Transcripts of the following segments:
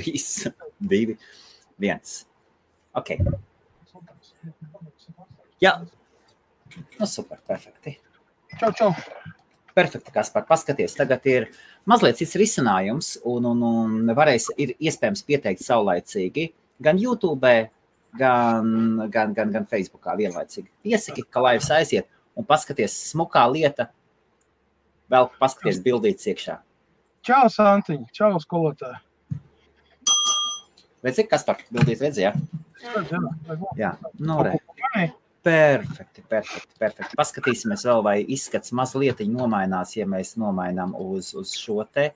3, 2, 1. Ok. Jā. Nu, super, perfekti. Čau. Perfekti, Kaspar, paskaties, tagad ir mazliet cits risinājums un ir iespējams pieteikt saulaicīgi gan YouTube, gan Facebookā vienlaicīgi. Piesaki, ka laivs aiziet un paskaties smukā lieta, vēl paskaties bildītes iekšā. Čau, Santiņ, čau, skolotāji. Redzi, Kaspar, bildīt redzi, jā? Jā, nu re. Perfekti. Paskatīsimies vēl, vai izskats mazlietiņi nomainās, ja mēs nomainām uz šo te.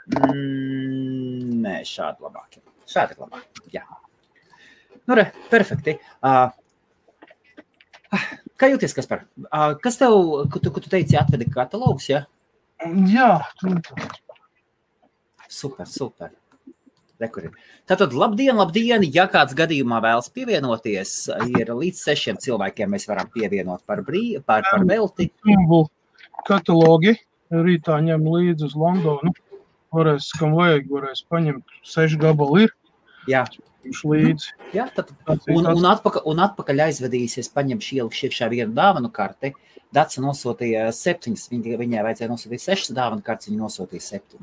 Nē, šādi labāk. Šādi ir labāk, jā. Nu re, perfekti. Kā jūties, Kaspar? Kas tev, tu teici, atvedi katalogus, jā? Jā. Super. Tātad, labdien, ja kāds gadījumā vēlas pievienoties, ir līdz 6 cilvēkiem mēs varam pievienot par velti. Katalogi rītā ņem līdzi uz Londonu. Varēs, kam vajag, varēs paņemt 6 gabali ir. Jā. Līdzi. Jā, tad, un atpakaļ aizvedīsies, paņemšu ielikšu iekšā vienu dāvanu karti. Daca nosūtīja 7, viņai vajadzēja nosūtīt 6 dāvanu kartes, viņa nosūtīja 7.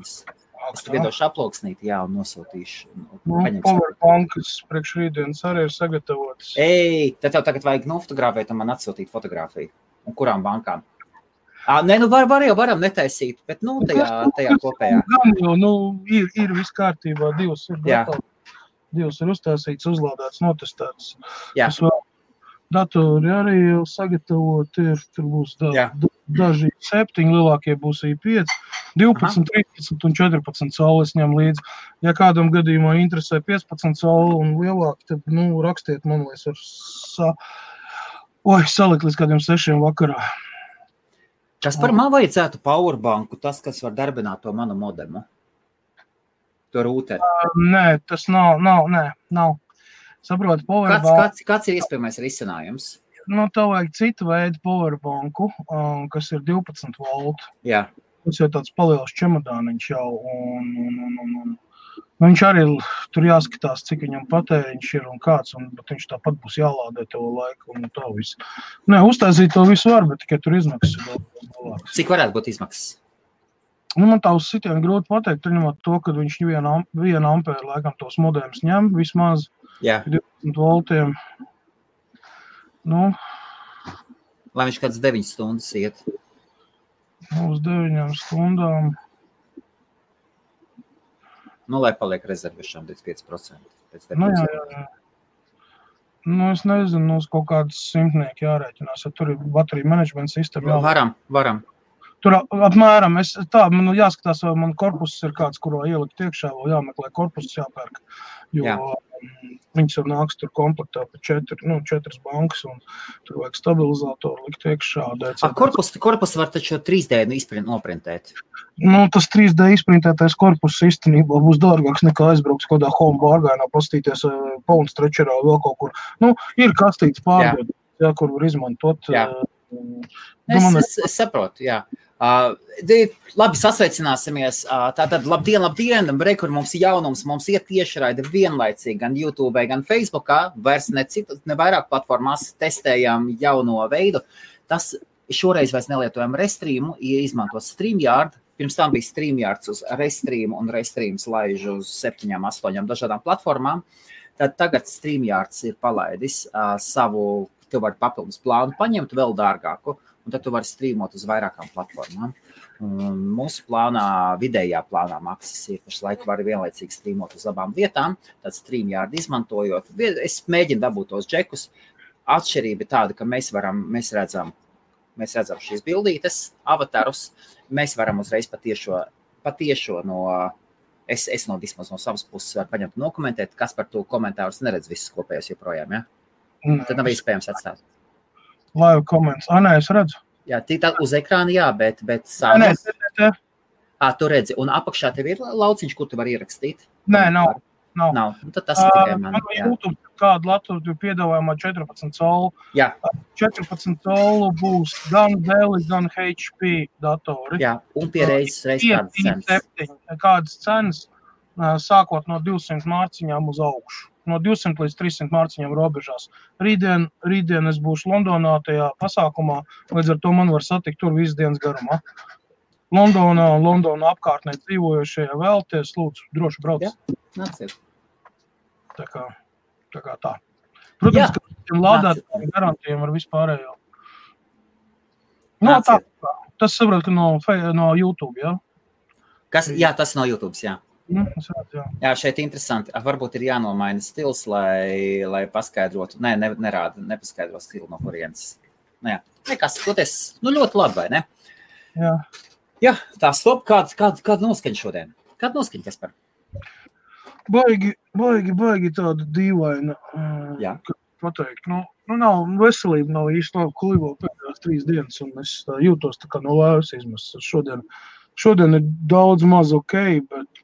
Es tu viedošu aploksnīti, jā, un nosūtīšu. Powerbankas priekš rītdienas arī ir sagatavotas. Tad tev tagad vajag nofotografēt un man atsūtīt fotografiju. Un kurām bankām? Nē, nu varam netaisīt, bet tajā kopējā. Gan jau, ir viss kārtībā, 2 ir gatavi. 2 ir uztaisīts, uzlādēts, notestēts. Jā. Datori arī jau sagatavot ir, tur būs daži 7, lielākie būs 5, 12, 13 un 14 saules ņem līdzi. Ja kādam gadījumā interesē 15 saule un lielāk, tad, rakstiet man, lai es varu salikt līdz kādiem 6 vakarā. Kas par man vajadzētu powerbanku, tas, kas var darbināt to manu modemu? To rūteri? Nē, tas nav. Saproti, powerbanku. Kāds ir iespējamais risinājums? Tev vajag citu veidu powerbanku, kas ir 12 volt. Jā. Tas jau tāds paliels čemodāniņš jau. Un viņš arī tur jāskatās, cik viņam patēriņš ir un kāds, bet viņš tāpat būs jālādē tev laiku un tā visu. Nē, uztaisīt to visu var, bet tikai tur izmaksas ir vēl. Cik varētu būt izmaksas? Man tā uz sitienu grūti pateikt, ņemot to, ka viņš 1 ampēru laikam tos modemus ņem vismaz. Jā. 20 voltiem. Lai viņš kāds 9 stundas iet. Uz 9 stundām. Lai paliek rezervišām 25%. Jā. Es nezinu, uz kaut kādas 100 jārēķinās, ja tur ir bateriju menedžmenta sistēma. Varam. Tur apmēram, man jāskatās, vai man korpus ir kāds, kurā ielikt iekšā, vēl jāmeklē korpus jāpērk, jo viņas jau nāks tur komplektā pa 4 bankas, un tur vajag stabilizatoru likt iekšā. Korpus var taču 3D noprintēt. Tas 3D izprintētais korpus īstenībā būs dārgāks nekā aizbrauks kādā home bārgainā, pastīties Pound Stretcherā vēl kaut kur. Ir kastīts pārdod, kur var izmantot. Es saprotu, jā. Labi, sasveicināsimies. Tātad, labdien, kur mums ir jaunums, mums ir tiešraide vienlaicīgi gan YouTube, gan Facebookā, vairs ne vairāk platformās testējam jauno veidu. Tas šoreiz vairs nelietojam Restreamu, izmanto StreamYard. Pirms tam bija StreamYards uz Restreamu un Restreams laiž uz 7, 8 dažādām platformām. Tad tagad StreamYards ir palaidis savu, tu vari papildus plānu paņemt vēl dārgāku, un tad tu vari streamot uz vairākām platformām. Mūsu vidējā plānā maksas ir, pašlaik var vienlaicīgi streamot uz abām vietām, tad StreamYard izmantojot. Es mēģinu dabūt tos džekus. Atšķirība tāda, ka mēs redzam šīs bildītes, avatarus, mēs varam uzreiz patiešo no, es vismaz no savas puses varu paņemt un nokomentēt, kas par to komentārus neredz visus kopējos joprojām, ja? Tad nav iespējams atstāt. Live comments. Nē, es redzu. Jā, tā uz ekrāna, jā, bet sāmas. Nē. Tu redzi, un apakšā tev ir lauciņš, kur tu vari ierakstīt? Nē, nav. Tad tas ir tikai man. YouTube kādu Latviju piedāvājumā 14 saulu. Jā. 14 saulu būs gan Dell, gan HP datori. Jā, un pie reizes kādas cenas. Kādas cenas. sākot no 200 mārciņām uz augšu. No 200 līdz 300 mārciņām robežās. Rītdien es būšu Londonā tajā pasākumā, līdz ar to man var satikt tur visu dienas garumā. Londonā apkārtnē dzīvojošie vēlties, lūdzu, droši brauc. Jā, nāciet. Tā kā tā. Protams, ka tiem lādētājiem garantiem ar vispārējo. No, tā. Tas saprot, ka no YouTube, jā? Jā, tas no YouTube, jā. Jā. Jā, šeit interesanti. Varbūt ir jānomaina stils, lai paskaidrotu. Nē, nepaskaidro stilu no kurienes. Jā, nekas, toties, ļoti labi, vai ne? Jā. Jā, tā stop, kāda noskaņa šodien? Kāda noskaņa, Kaspar? Baigi tāda dīvaina. Jā. Pateikt. Nav veselība, nav īsti labi klivo pēdējās 3 dienas, un es jūtos tā kā no vēvas izmestas. Šodien ir daudz maz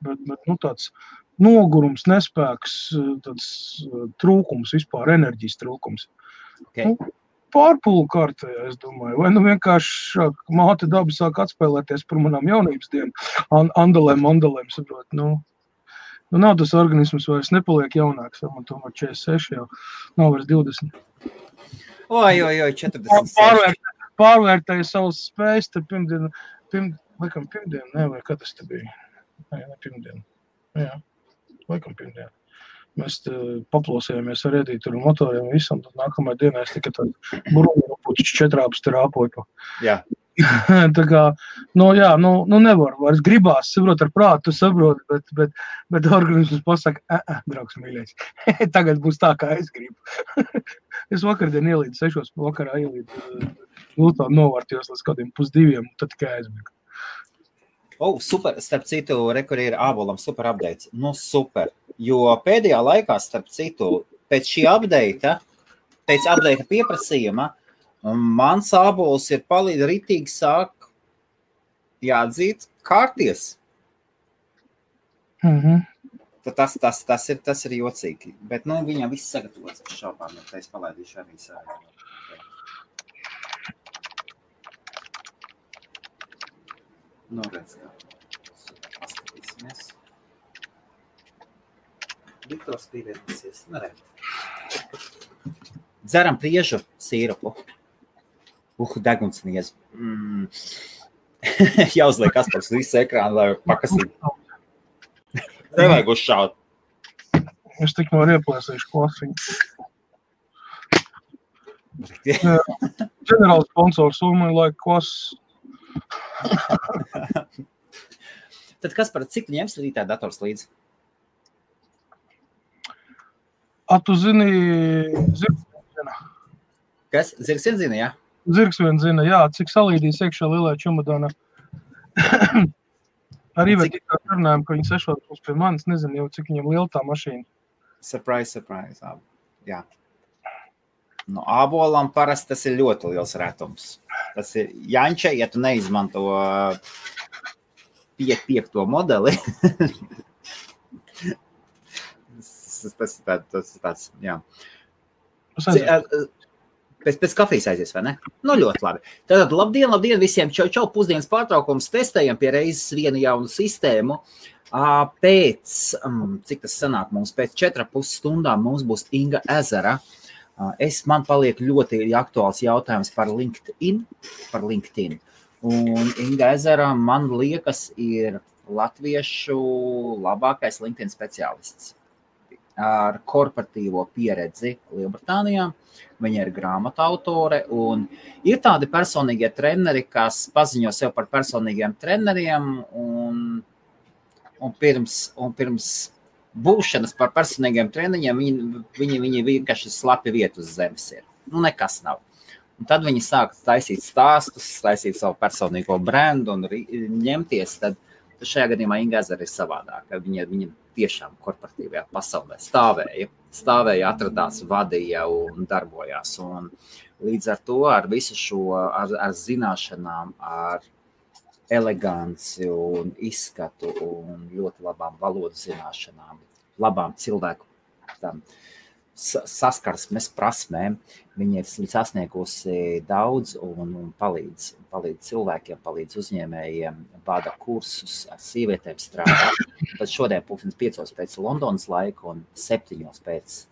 bet tāds nogurums, nespēks, tāds trūkums vispār, enerģijas trūkums. Okay. Pārpulu kārtējā, es domāju. Vai vienkārši māte daba sāk atspēlēties par manām jaunības dienu. Andalēm, saprot. Nav tas organisms vairs nepaliek jaunāks. Man tomēr 46 jau nav vairs 20. Oi, 46. Pārvērtēju savas spējas, te pirmdien, vai kad tas te bija? Ne pirmdien. Jā, laikam pirmdien. Mēs paplosējāmies ar Edītu un motoriem visam, tad nākamajā dienā es tikai tādu burbuļupuķis 4 strāpoju. Jā. Tā kā, nevar vairs gribās, saprot ar prātu, tu saproti, bet organisms pasaka, draugs mīļais, tagad būs tā, kā es gribu. Es vakardien ielīdu 6 vakarā, novārtījos līdz kādiem 1:30, tad tikai aizmirku. Super, starp citu, kur ir ābolam super updates. Super, jo pēdējā laikā, starp citu, pēc šī update, pēc update pieprasījuma, mans ābols ir ritīgi sāk jāatzīt kārties. Tas ir jocīgi, bet, viņam viss sagatavots ar šaubām, ja es palaidīšu arī savu. Redz, kā paskatīsimies. Viktors pievienosies. Dzeram priežu sīrupu. Degunsniez. Jāuzliek Kaspars visu ekrānu, lai pakasītu. Nevajag uzšaut. Es tik no ieplēsīšu klasiņu. Ģenerāls sponsors Ulmai laika klases. Tad kas par cik tu ņemsi rītā dators līdzi? Tu zini, zirgs vien zina. Kas? Zirgs vien zina, jā? Zirgs vien zina, jā. Cik salīdīs iekšā lielā čumadāna. Arī vēl tikā runājam, ka viņi 6 būs pie manis. Nezinu jau, cik viņam liela tā mašīna. Surprise. Jā. Ābolam parasti tas ir ļoti liels retums. Tas ir Janča, ja tu neizmanto 5. modeli. tas tāds, jā. Pēc kafijas aizies, vai ne? Ļoti labi. Tātad, labdien visiem, čau, pusdienas pārtraukums, testējam pie reizes vienu jaunu sistēmu. Cik tas sanāk mums, pēc 4,5 stundām mums būs Inga Ezera. Man paliek ļoti aktuāls jautājums par LinkedIn. Un Inga Ezera, man liekas, ir latviešu labākais LinkedIn speciālists ar korporatīvo pieredzi Lielbritānijā. Viņa ir grāmatu autore un ir tādi personīgie treneri, kas paziņo sev par personīgiem treneriem un pirms būšanas par personīgiem treniņiem, viņi vienkārši slapi vietu uz zemes ir. Nekas nav. Un tad viņi sāk taisīt stāstus, taisīt savu personīgo brendu un ņemties, tad šajā gadījumā Inga Ezera ir savādāka. Viņa tiešām korporatīvajā pasaulē stāvēja, atradās, vadīja un darbojās. Un līdz ar to, ar visu šo, ar zināšanām, ar eleganci un izskatu un ļoti labām valodu zināšanām, labām cilvēku saskarsmes prasmēm. Viņa ir sasniegusi daudz un palīdz cilvēkiem, palīdz uzņēmējiem, vada kursus, ar sievietēm strādā. Tad šodien 5:00 pēc Londonas laika un 7:00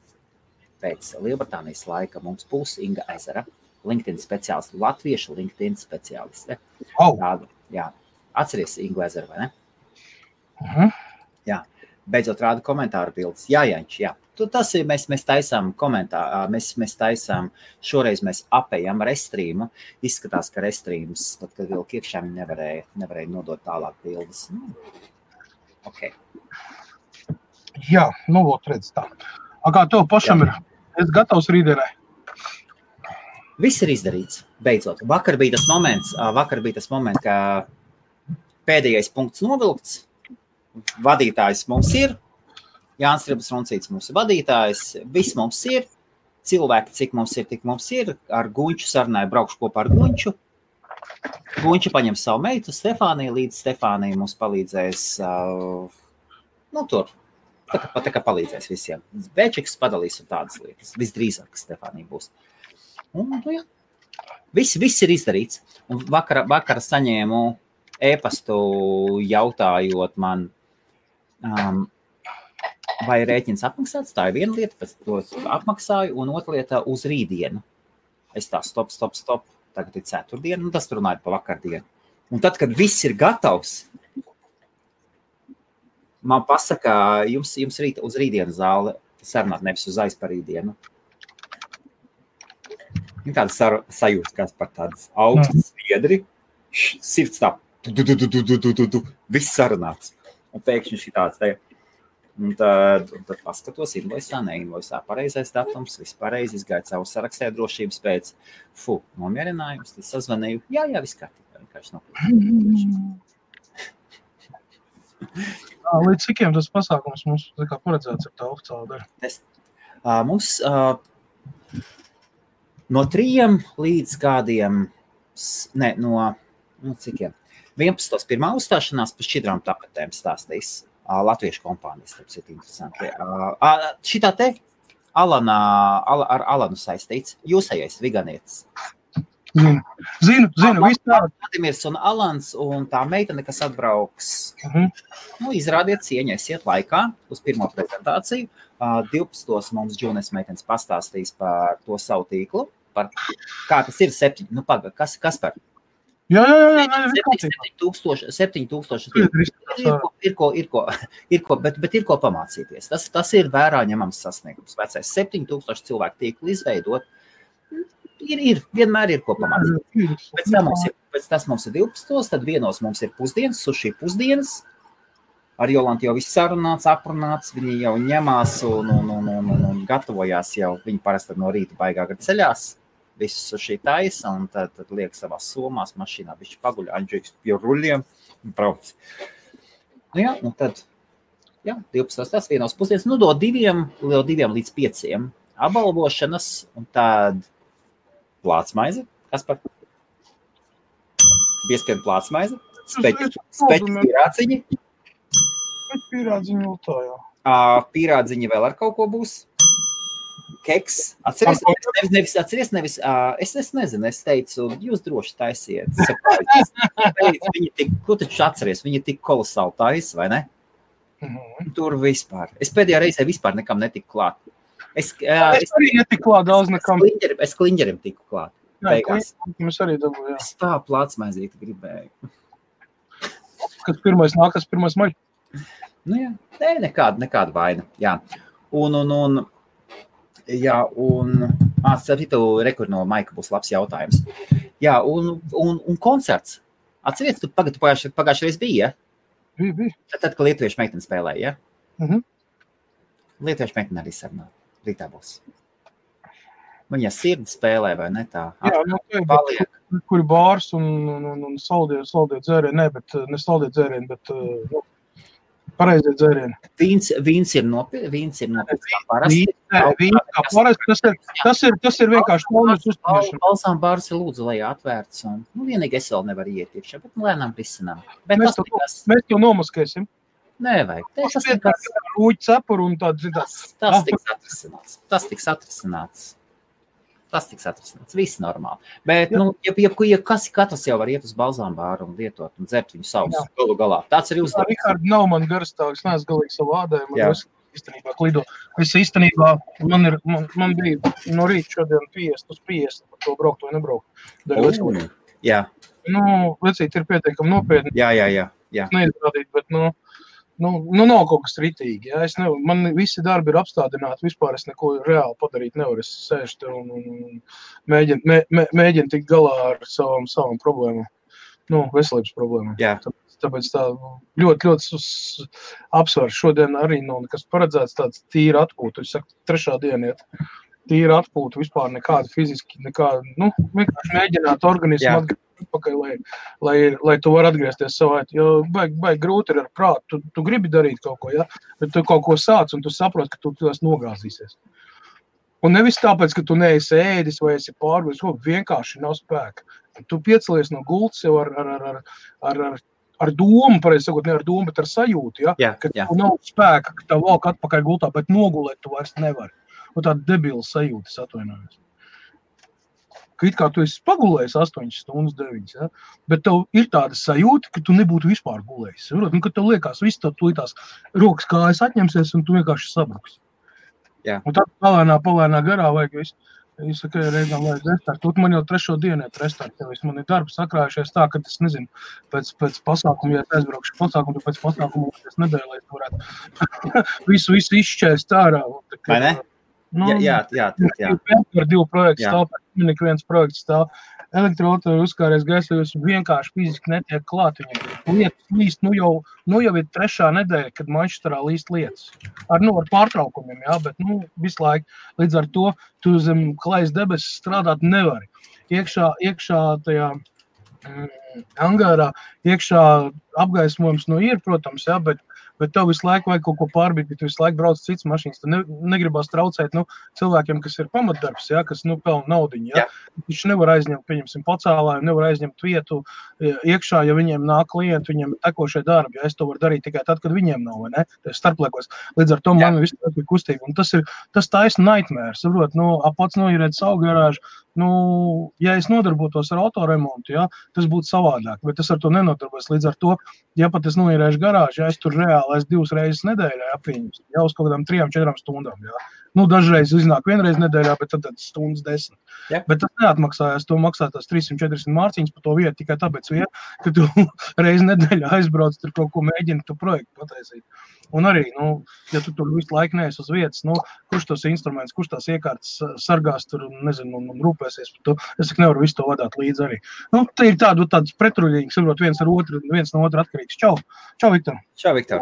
pēc Lielbritānijas laika mums būs Inga Ezera, LinkedIn speciāliste, latviešu LinkedIn speciāliste. Tādu, jā. Atceries Ingu Ezeru, vai ne? Jā. Beidzot rāda komentāru bildes. Jā. Tas ir, mēs taisām komentāru, mēs taisām, šoreiz mēs apējam Restreamu. Izskatās, ka Restreams, tad, kad vilk iekšā, viņi nevarēja nodot tālāk bildes. Ok. Jā, redz tā. Kā tev pašam ir? Es gatavs rītdienai. Viss ir izdarīts, beidzot. Vakar bija tas moments, ka pēdējais punkts novilkts. Vadītājs mums ir. Jānis Ribas Roncīts mums ir vadītājs. Viss mums ir. Cilvēki, cik mums ir, tik mums ir. Ar Guņču sarunāju, braukšu kopā ar Guņču. Guņču paņem savu meitu, Stefāniju, līdz Stefānija mums palīdzēs, tur. Tā kā palīdzēs visiem. Bēčiks padalīs un tādas lietas. Visdrīzāk, ka Stefānija būs. Un, jā. Viss ir izdarīts. Un vakar saņēmu e-pastu jautājot man, vai rēķins apmaksāts. Tā ir viena lieta, pēc to apmaksāju, un otra lieta uz rītdienu. Es tā stop. Tagad ir ceturtdiena, un tas runāja pa vakardienu. Un tad, kad viss ir gatavs, man pasaka, jums uz rītdienu zāle sarunāt, nevis uz aizparītdienu. Ir tāda sajūta, kas par tādas augstas viedri, sirds tā, viss sarunāts. Un pēkšņi šī tāds te. Un tad paskatos invoisā, neinvoisā, pareizais datums, viss pareizi, izgāja savu sarakstē drošības pēc, nomierinājums, tad sazvanīju, jā, viss kārtībā, vienkārši nav. Līdz cikiem tas pasākums mums paredzēts ar tā oficiāla dara? Mums no 3 līdz kādiem, no cikiem, 11. pirmā uzstāšanās pa šķidrām tapetēm stāstīs latviešu kompānijas, tāpēc ir interesanti. Šitā te ar Alanu saistīts, jūsējais viganietis. Zinu, viss tā. Vladimirs un Alans un tā meitene, kas atbrauks, izrādiet cieņu, esiet laikā uz pirmo prezentāciju. 12. mums Džūnes meitenes pastāstīs par to savu tīklu, par kā tas ir 7, kas par? Jā. 7,000 ir ko, bet ir ko pamācīties. Tas ir vērā ņemams sasniegums. Vecais 7,000 cilvēku tīklu izveidot, vienmēr ir ko pamācīties. Pēc tas mums ir 12, tad vienos mums ir pusdienas, suši pusdienas. Ar Jolantu jau viss sarunāts, aprunāts, viņi jau ņemās un gatavojās jau, viņi parasti no rīta baigā ceļās. Visus šī taisa, un tad liek savās somās, mašīnā, bišķi paguļ, Andžēks pie ruļiem, un brauc. Un tad, 12. tas vienos pusdienas, do 2 līdz 5 apbalvošanas, un tad plātsmaize, kas par? Biespien plātsmaize, speķi pīrādziņi. Pīrādziņi vēl tā, jā. Pīrādziņi vēl ar kaut ko būs. Keks, atceries, nevis, es nezinu, es teicu, jūs droši taisiet. Ko taču atceries, viņi tik kolosāli taisa, vai ne? Tur vispār. Es pēdējā reizē vispār nekam netiku klāt. Es arī netiku klāt daudz nekam. Es kliņģerim tiku klāt. Mēs arī dabūju, jā. Es tā plātsmaizīti gribēju. Kad pirmais nākas, pirmais maļ? Nekāda vaina, jā. Starp citu, rekur no Maika būs labs jautājums. Jā, un koncerts. Atceries, tu pagājušajā reiz bija, ja? Bija. Tad, ka lietuviešu meitene spēlēja, ja? Lietuviešu meitene arī sarunā. Rītā būs. Viņa sirdi spēlē, vai ne tā? Jā, kuri bārs un saldie dzērieni, ne saldie dzērieni, bet pareizie dzērieni. Vīns ir nopietns kā parasti. Tas ir vienkārši paunas uzturēšana. Balsām bārs ir lūdzu, lai atvērts. Vienīgi es vēl nevaru iet iekšā, bet lēnām risinām. Mēs to nomaskēsim. Nevajag. Rūķi cepuru un tāds. Tas tiks atrisināts. Viss normāli. Bet, katrs jau var iet uz balzām bāru un lietot un dzert viņu savus galu galā. Tāds arī uzdevums. Rikārd, nav man garstāvis, neesmu galīgi savu ādējumu. Īstenībā klido. Es īstenībā, man bija no rīta šodien 50 uz 50 par to braukt vai nebraukt. Jā. Vecīt ir pietiekami nopietni. Jā. Neizrādīt, bet, nav kaut kas ritīgi. Ja? Man visi darbi ir apstādināti, vispār es neko reāli padarīt nevaru. Es sēžu tur un mēģinu tikt galā ar savam problēmām. Veselības problēmām. Jā. Tāpēc tā ļoti apsvars. Šodien arī nav nekas paredzēts tāds tīra atpūta. Es saku, 3. diena iet. Tīra atpūta, vispār nekāda fiziski, vienkārši mēģināt organismu atpakaļ, lai tu var atgriezties savā. Jo baigi grūti ir ar prātu. Tu gribi darīt kaut ko, ja? Bet tu kaut ko sāc un tu saproti, ka tu tās nogāzīsies. Un nevis tāpēc, ka tu neesi ēdis vai esi pārvis, vienkārši nav spēka. Tu piecelies no gultas jau ar domu, pareizi sakot, ne ar domu, bet ar sajūtu, ja? Ka tu nav spēka, ka tev valk atpakaļ gultā, bet nogulēt tu vairs nevari. Un tāda debila sajūta, es atvainojos. Ka it kā tu esi pagulējis 8 stundas, 9, ja? Bet tev ir tāda sajūta, ka tu nebūtu vispār gulējis. Ka tev liekas, viss tev tās rokas kājas atņemsies un tu vienkārši sabruks. Un tad palēnā garā vajag visu. Es saku, reizēm vajag restartu. Man jau 3. dienu iet restartu. Man ir darbi sakrājušies tā, ka es nezinu, pēc pasākuma, ja aizbraukšu pasākumu, tad pēc pasākuma es nedēļu, lai es varētu visu izšķēst ārā. Vai ne? Jā. Par 2 projektu stāv, pēc viens projekts stāv. Elektroautori uzkāries gaisā, jūs vienkārši fiziski netiek klāt viņam. Lietas līst, jau ir 3. nedēļa, kad Manchesterā līst lietas. Ar pārtraukumiem, jā, bet visu laiku. Līdz ar to tu zem klajas debesis strādāt nevari. Iekšā tajā angārā, iekšā apgaismojums ir, protams, jā, bet tev visu laiku vajag kaut ko pārbīt, bet tu visu laiku brauc cits mašīnas. Tu negribās traucēt cilvēkiem, kas ir pamatdarbs, ja, kas pelna naudiņu. Ja. Viņš nevar aizņemt, pieņemsim, pacēlāju, nevar aizņemt vietu iekšā, ja viņiem nāk klienti, viņiem tekošie darbi. Ja. Es to varu darīt tikai tad, kad viņiem nav, vai ne? Starpliekos. Līdz ar to man viss ir kustība. Un tas taisna nightmare, saprot, pats noīrēt savu garāžu. Ja es nodarbotos ar autoremontu, ja, tas būtu savādāk, bet es ar to nenodarbos. Līdz ar to, ja pat es noīrēšu garāžu, ja es tur reāli 2 reizes nedēļā apviņus, jau uz kaut kādām 3-4 stundām. Ja. Dažreiz iznāk vienreiz nedēļā, bet tad stundas 10. Ja. Bet tas neatmaksājās, to maksā tās 340 mārciņas par to vietu tikai tāpēc, ka tu reizi nedēļā aizbrauc, tur kaut ko mēģini tu projektu pataisīt. Un arī, ja tu tur visu laiku neesi uz vietas, kurš tos instruments, kurš tās iekārtas sargās tur, nezinu, un rūpēsies par to, es nevaru visu to vadāt līdzi arī. Te ir tāds pretruļīgs, saprot, viens no otru atkarīgs. Čau, Viktor. Čau, Viktor.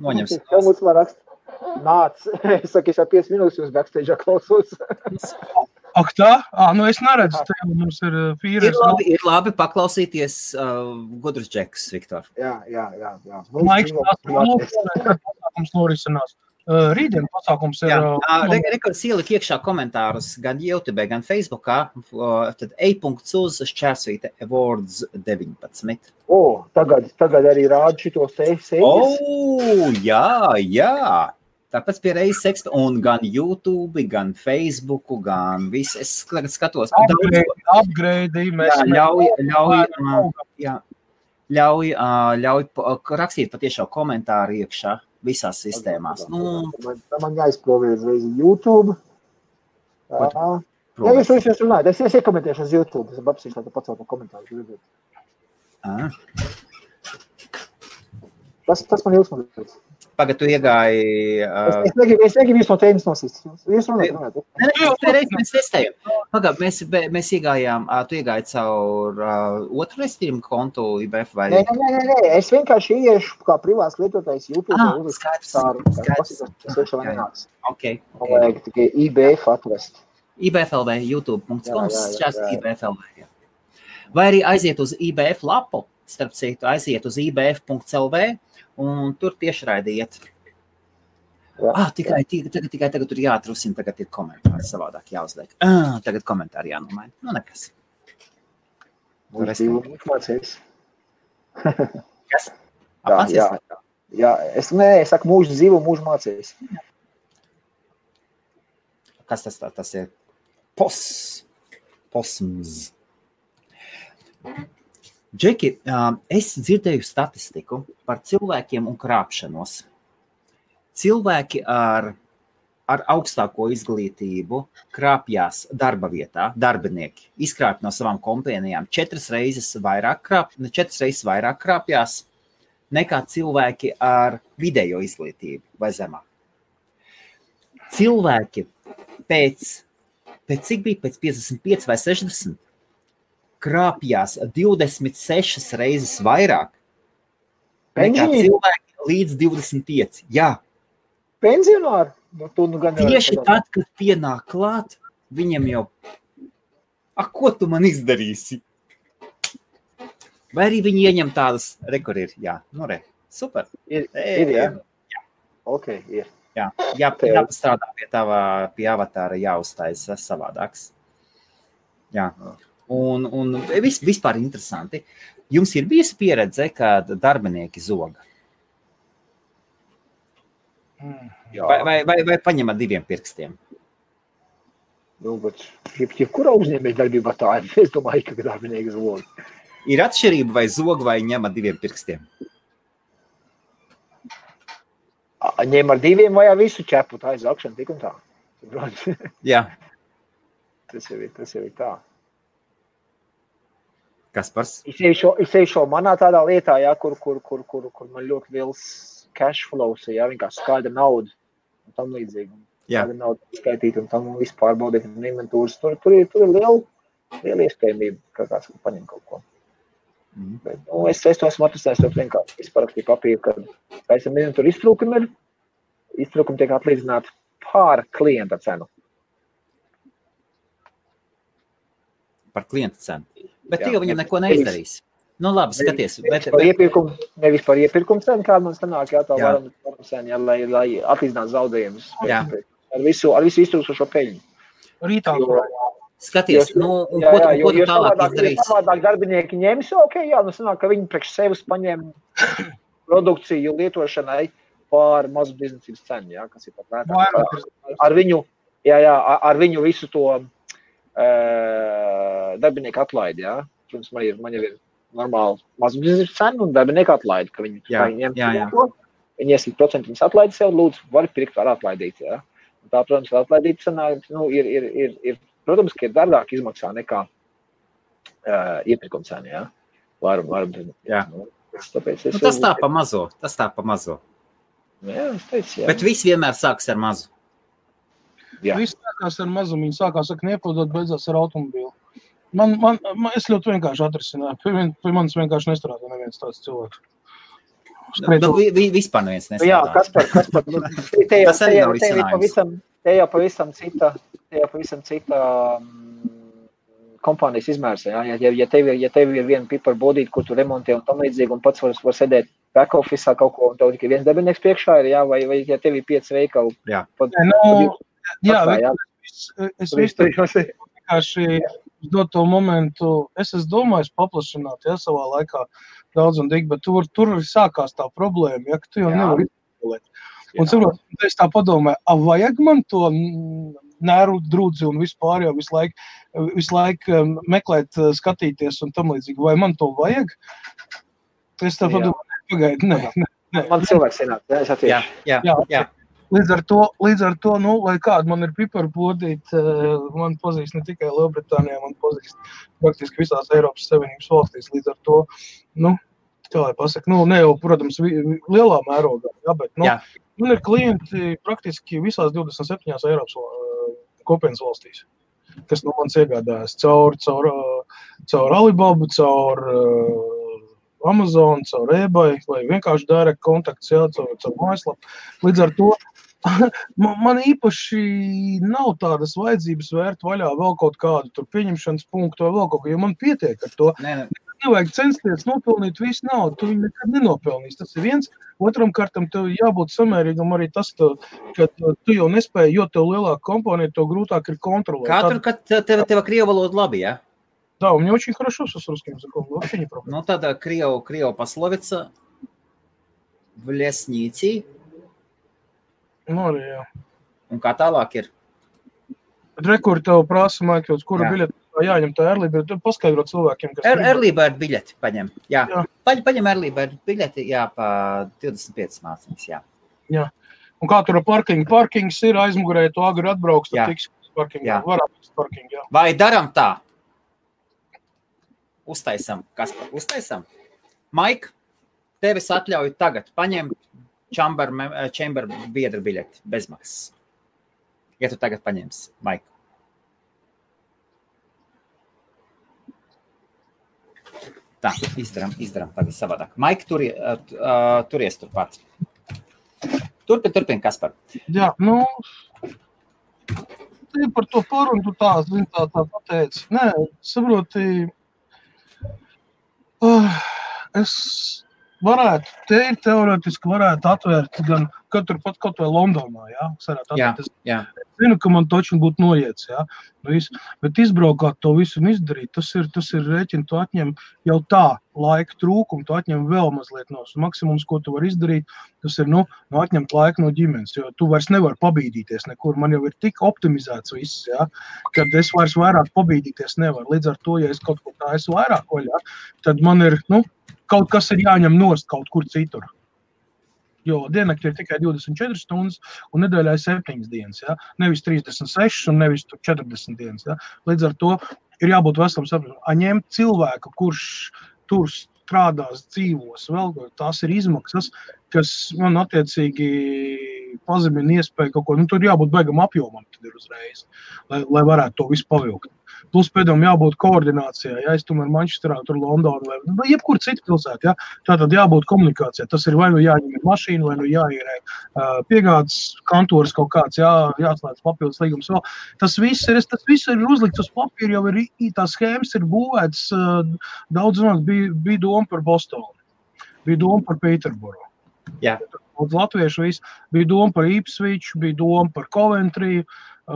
Noņemsim. Čau, mums var rakst. Nāc, es saku, es jau 5 minūtes jūs backstage'ā klausos. Ak tā? Es neredzu, tev mums ir fīres. Ir labi paklausīties gudrus džekus, Viktor. Jā. Maiks, pasākums norisinās. Rītdien pasākums ir... Rekords ielika iekšā komentārus gan YouTube, gan Facebookā, tad e.uz Awards 19. Tagad arī rāda šito sēļas. Jā. Tāpēc pie reizes seksta, un gan YouTube, gan Facebooku, gan viss, es skatos. Upgrade, ļauj rakstīt patiešām komentāru iekšā visās sistēmās. Man jāizprovē uzreiz YouTube. Ja jūs runājat, es iekomentēšu uz YouTube, es apsīšu, lai tu pacelt no komentāru. Tas man ilgsmādīts. Pagad, tu iegāji... Es negribu jūs no tēmas nosist. Jūs runājat. Mēs testējam. Pagad, mēs iegājām, tu iegāji caur otru restījumu kontu IBF vai... Nē, es vienkārši ieiešu kā privāts lietotājs YouTube. Skaidrs. Okay. Vajag tikai IBF atvest. IBFLV, youtube.com, šās IBFLV. Vai arī aiziet uz IBF lapu, starp citu, aiziet uz IBF.lv, un tur tiešraidi iet. Tagad tur jāatrusina, tagad ir komentāri savādāk jāuzliek. Tagad komentāri jānomaina. Nekas. Mums mācīs. Kas? Jā. Jā, es saku mūžu dzīvu, mūžu mācījis. Kas tas ir? Posms. Džeki, es dzirdēju statistiku par cilvēkiem un krāpšanos. Cilvēki ar augstāko izglītību krāpjās darba vietā, darbinieki, izkrāpj no savām kompānijām 4 reizes vairāk krāpjās nekā cilvēki ar vidējo izglītību vai zemāk. Cilvēki pēc cik bija, pēc 55 vai 60, krāpjās 26 reizes vairāk nekā cilvēki līdz 25. Jā. Pensionāri? Tieši tad, kad pienāk klāt, viņam jau, ko tu man izdarīsi? Vai arī viņi ieņem tādas, kur ir, jā, super. Ir, jā. Ok, ir. Jā, jāpastrādā pie avatāra, jāuztaisa savādāks. Jā, un vispār interesanti. Jums ir bijusi pieredze, kad darbinieki zoga? Vai paņemat 2 pirkstiem? Nu, bet jebkurā uzņēmēja darbībā tā ir. Es domāju, ka darbinieki zog. Ir atšķirība vai zog vai ņem ar 2 pirkstiem? Ņem ar 2 vai ar visu ķepu, tā ir zakšana tik un tā. Jā. Tas jau ir tā. Kaspars? Es eju manā tādā lietā, jā, kur man ļoti liels cash flows, jā, vienkārši skaidra nauda un tam līdzīgi. Skaidra nauda skaitīt un tam visu pārbaudīt un inventūras. Tur ir liela iespējamība, ka kāds paņem kaut ko. Bet, es to esmu atrastājis ļoti vienkārši. Es parakstīju papīru, ka esam tur iztrūkumi tiek atlīdzināti pār klienta cenu. Par klienta cenu. Bet tu jau viņam neko neizdarīs. Nu labi, skaties. Nevis par iepirkumu cenu, kāda man sanāk, jā, tā varam cenu, jā, lai atlīdzinātu zaudējumus. Ar visu iztrūkstošo peļņu. Rītā. Skaties, un ko tu tālāk izdarīsi? Jo savādāk darbinieki ņems, sanāk, ka viņi priekš sevis paņem produkciju lietošanai pār mazu biznesības cenu, jā, kas ir pat vērtāk. Ar viņu visu to darbinieku atlaidi, jā. Protams, man jau ir normāli mazu biznesības cenu un darbinieku atlaidi, ka viņi ņem to. Viņi iesīt procentu, viņas atlaidi sev, lūdzu, var pirkt, var atlaidīt, jā. Un tā, protams, atlaidīt sanāk, ir protams, ka ir dārgāk izmaksā nekā iepirkuma cena, jā. Jā. Tāpēc tas tā pa mazo. Jā, es teicu, jā. Bet viss vienmēr sāks ar mazu. Jā. Viss sākās ar mazumu, viņi sākās ar kniepodot, beidzās ar automobīlu. Es ļoti vienkārši atrisināju. Pie manis vienkārši nestrādā neviens tāds cilvēks. Vispār neviens nestrādā. Jā, Kaspar, te jau pavisam cita kompānijas izmērs. Ja tev ir viena piparu bodīte, kur tu remontē un tam līdzīgi, un pats var sēdēt back office'ā kaut ko, un tev tikai viens darbinieks priekšā ir, jā, vai ja tev ir 5 veikali. Jā. Es vienkārši dot to momentu, es domāju paplašināt, ja, savā laikā daudz un dīgi, bet tur arī sākās tā problēma, ja, ka tu jau nevari izpildīt. Un saprot, es tā padomāju, vajag man to nēru drūdzi un vispār jau visu laiku meklēt, skatīties un tam līdzīgi, vai man to vajag? Es tā padomāju, pagaidi, nē. Man cilvēks ienāk, es atiešu. Jā. Līdz ar to, lai kāda man ir piparu bodīte, man pazīst ne tikai Lielbritānijā, man pazīst praktiski visās Eiropas Savienības valstīs. Līdz ar to, kā lai pasaka, ne jau, protams, lielā mērogā, bet, man ir klienti praktiski visās 27 Eiropas kopienas valstīs, kas no manis iegādājas caur Alibaba, caur Amazon, caur eBay, vai vienkārši direct kontakts, caur mājaslapu. Līdz ar to man īpaši nav tādas vajadzības vērt vaļā vēl kaut kādu tur pieņemšanas punktu vai vēl kaut ko, jo man pietiek ar to. Nevajag censties nopelnīt visu naudu, tu viņu nekad nenopelnīs. Tas ir viens. Otram kārtam tev jābūt samērīgam arī tas, ka tu jau nespēji, jo tev lielāka kompānija, tev grūtāk ir kontrolēt. Kā tur, kad tev krievu valoda labi, jā? Да, у меня очень хорошо с русским языком, вообще не проблема. Тогда Крио пословица. v Ļesņīcī. Arī, jā. Un kā tālāk ir? Rekur tev prasa, Maikls, kura biļeti jāņem tā early bird, tu paskaidro cilvēkiem, kas early bird biļeti paņem, jā. Paņem early bird biļeti, jā, pa 25 mārciņas, jā. Jā. Un kā tur parkings ir aizmugurē, tu agri atbrauks, tad tiks parking, varētu parking, jā. Vai daram tā? Uztaisam, Kaspar, uztaisam? Maik, tevis atļauju tagad paņemt chamber biedra biļeti bezmaksas. Ja tu tagad paņemsi, Maik. Tā, izdaram tagad savādāk. Maik, turies turpat. Turpin, Kaspar. Jā, te par to parunu tu tā pateici. Nē, saproti, es varētu, teoretiski varētu atvērt gan katru pat kaut vai Londonā, jā? Jā. Es zinu, ka man točni būtu noiets, jā? Bet izbraukāt to visu un izdarīt, tas ir rēķini, tu atņem jau tā laika trūkumu, tu atņem vēl mazliet no maksimums, ko tu vari izdarīt, tas ir, atņemt laiku no ģimenes, jo tu vairs nevar pabīdīties nekur, man jau ir tik optimizēts viss, jā, kad es vairs vairāk pabīdīties nevaru, līdz ar to, ja es kaut ko tā esmu vairāk vaļā, tad man ir, kaut kas ir jāņem nost kaut kur citur. Jo diennakti ir tikai 24 stundas un nedēļā ir 7 dienas, ja? Nevis 36 un nevis 40 dienas. Ja? Līdz ar to ir jābūt veselam sapratam. Ņemt cilvēku, kurš tur strādās, dzīvos, vēl tās ir izmaksas, kas man attiecīgi pazemina iespēju kaut ko. Tur jābūt baigam apjomam tad ir uzreiz, lai varētu to visu pavilkt. Plus pēdām jābūt koordinācijā, ja es tomēr Manchesterā, tur Londonu vai jebkur citu pilsētu, ja? Tātad jābūt komunikācijā. Tas ir vai jāņem mašīnu, vai jāierē piegādes kantors kaut kāds, jāatslēdz papildus līgums vēl. Tas viss ir uzlikts uz papīra, jau ir tās schēmas ir būvētas, daudz bija doma par Bostonu, bija doma par Pēterboru. Jā. Daudz latviešu visu, bija doma par Ipswich, bija doma par Coventry,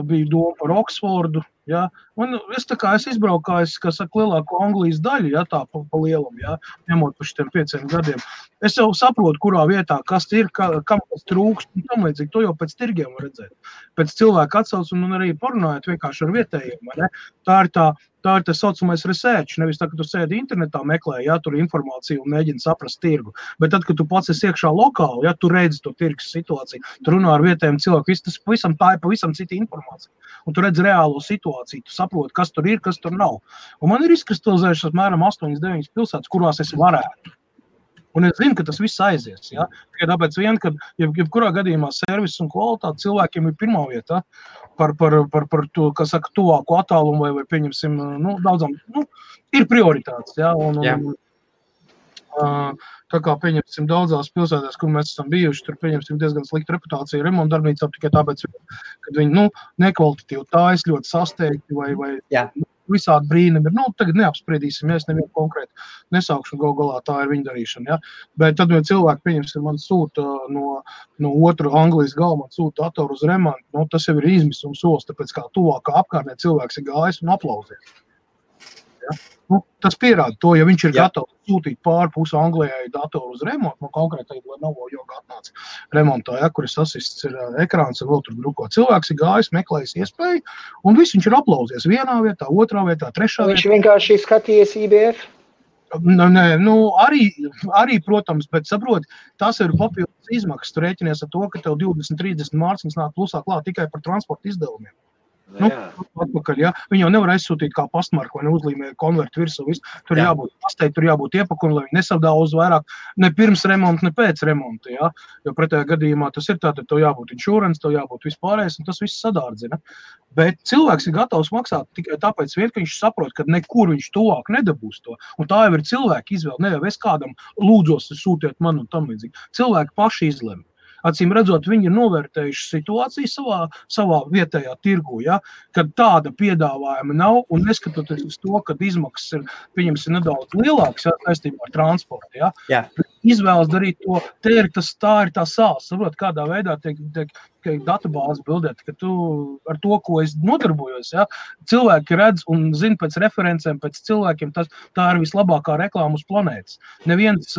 bija doma par Oksfordu, ja? Un es izbraukājis, kā saka, lielāko Anglijas daļu, ja, tā pa lielam, ja, ņemot pa šitiem 5 gadiem. Es jau saprotu, kurā vietā, kas ir, kam kas trūkst, un tam līdzīgi, to jau pēc tirgiem var redzēt. Pēc cilvēku atsauc un arī parunājot vienkārši ar vietējiem, ne? Tā ir tā saucamais research, nevis tā, ka tu sēdi internetā meklē, ja, tur informāciju un mēģini saprast tirgu. Bet tad, kad tu pats esi iekšā lokāli, ja, tu redzi to tirgus situāciju, tu runā ar vietējiem cilvēku, tā ir pavisam cita informācija. Un tu redzi reālo situāciju, tu saproti, kas tur ir, kas tur nav. Un man ir izkristalizējušas apmēram 8-9 pilsētas, kurās es varētu. Un es zinu, ka tas viss aizies, ja? Tikai tāpēc ka jebkurā gadījumā servis un kvalitāte cilvēkiem ir pirmā vieta par to, kas saka, tuvāku attālumu vai pieņemsim, daudzām, ir prioritātes, ja? Tā kā pieņemsim daudzās pilsētās, kur mēs esam bijuši, tur pieņemsim diezgan slikta reputācija remontdarbnīcā, tikai tāpēc, kad viņi, nekvalitatīvi tājas ļoti sasteigti vai visādi brīnumi ir. Tagad neapspriedīsim, ja es nevienu konkrēti nesaukšu, galā tā ir viņa darīšana. Ja? Bet tad, ja cilvēki, pieņemsim, man sūta no otra Anglijas gala, man sūta datoru uz remontu, tas jau ir izmisums solis, tāpēc kā tuvākā apkārtnē cilvēks ir gājis un aplausies. Ja? Tas pierāda to, ja viņš ir gatavs sūtīt pāri pusi Anglijai datoru uz remontu, konkrētai Lenovo joga atnāca remontā, ja, kur ir sasists ir ekrāns un vēl tur druko. Cilvēks ir gājis, meklējis iespēju, un viss viņš ir aplausies vienā vietā, otrā vietā, trešā vietā. Viņš vienkārši skatījies IBF? Nē, arī, protams, bet saproti, tas ir papildus izmaksas. Tu rēķinies ar to, ka tev 20-30 mārciņas nāk plusā klāt tikai par transporta izdevumiem. Atpakaļ, ja? Viņi jau nevar aizsūtīt kā pastmarku vai neuzlīmē konvertu virsū. Tur jābūt pastei, tur jābūt iepakumi, lai viņi nesavdāuz vairāk ne pirms remonta, ne pēc remonta. Ja? Jo pretējā gadījumā tas ir tātad, tev jābūt insurance, tev jābūt vispārējais, un tas viss sadārdzina. Bet cilvēks ir gatavs maksāt tikai tāpēc, ka viņš saprot, ka nekur viņš tuvāk nedabūs to. Un tā jau ir cilvēka izvēle. Ne jau es kādam lūdzos, sūtiet man un tam līdzīgi. Cilvēki paši izlemj. Acīm redzot, viņi ir novērtējuši situāciju savā vietējā tirgu, ja, kad tāda piedāvājuma nav, un neskatoties uz to, kad izmaksas ir, pieņemsim, nedaudz lielākas, ja, saistībā ar transportu, ja. Izvēlas darīt to, tā ir tā sāls, saprot, kādā veidā tiek databāzi bildēt, ka tu ar to, ko es nodarbojos, ja, cilvēki redz un zina pēc referencēm, pēc cilvēkiem, tā ir vislabākā reklāma uz planētas. Neviens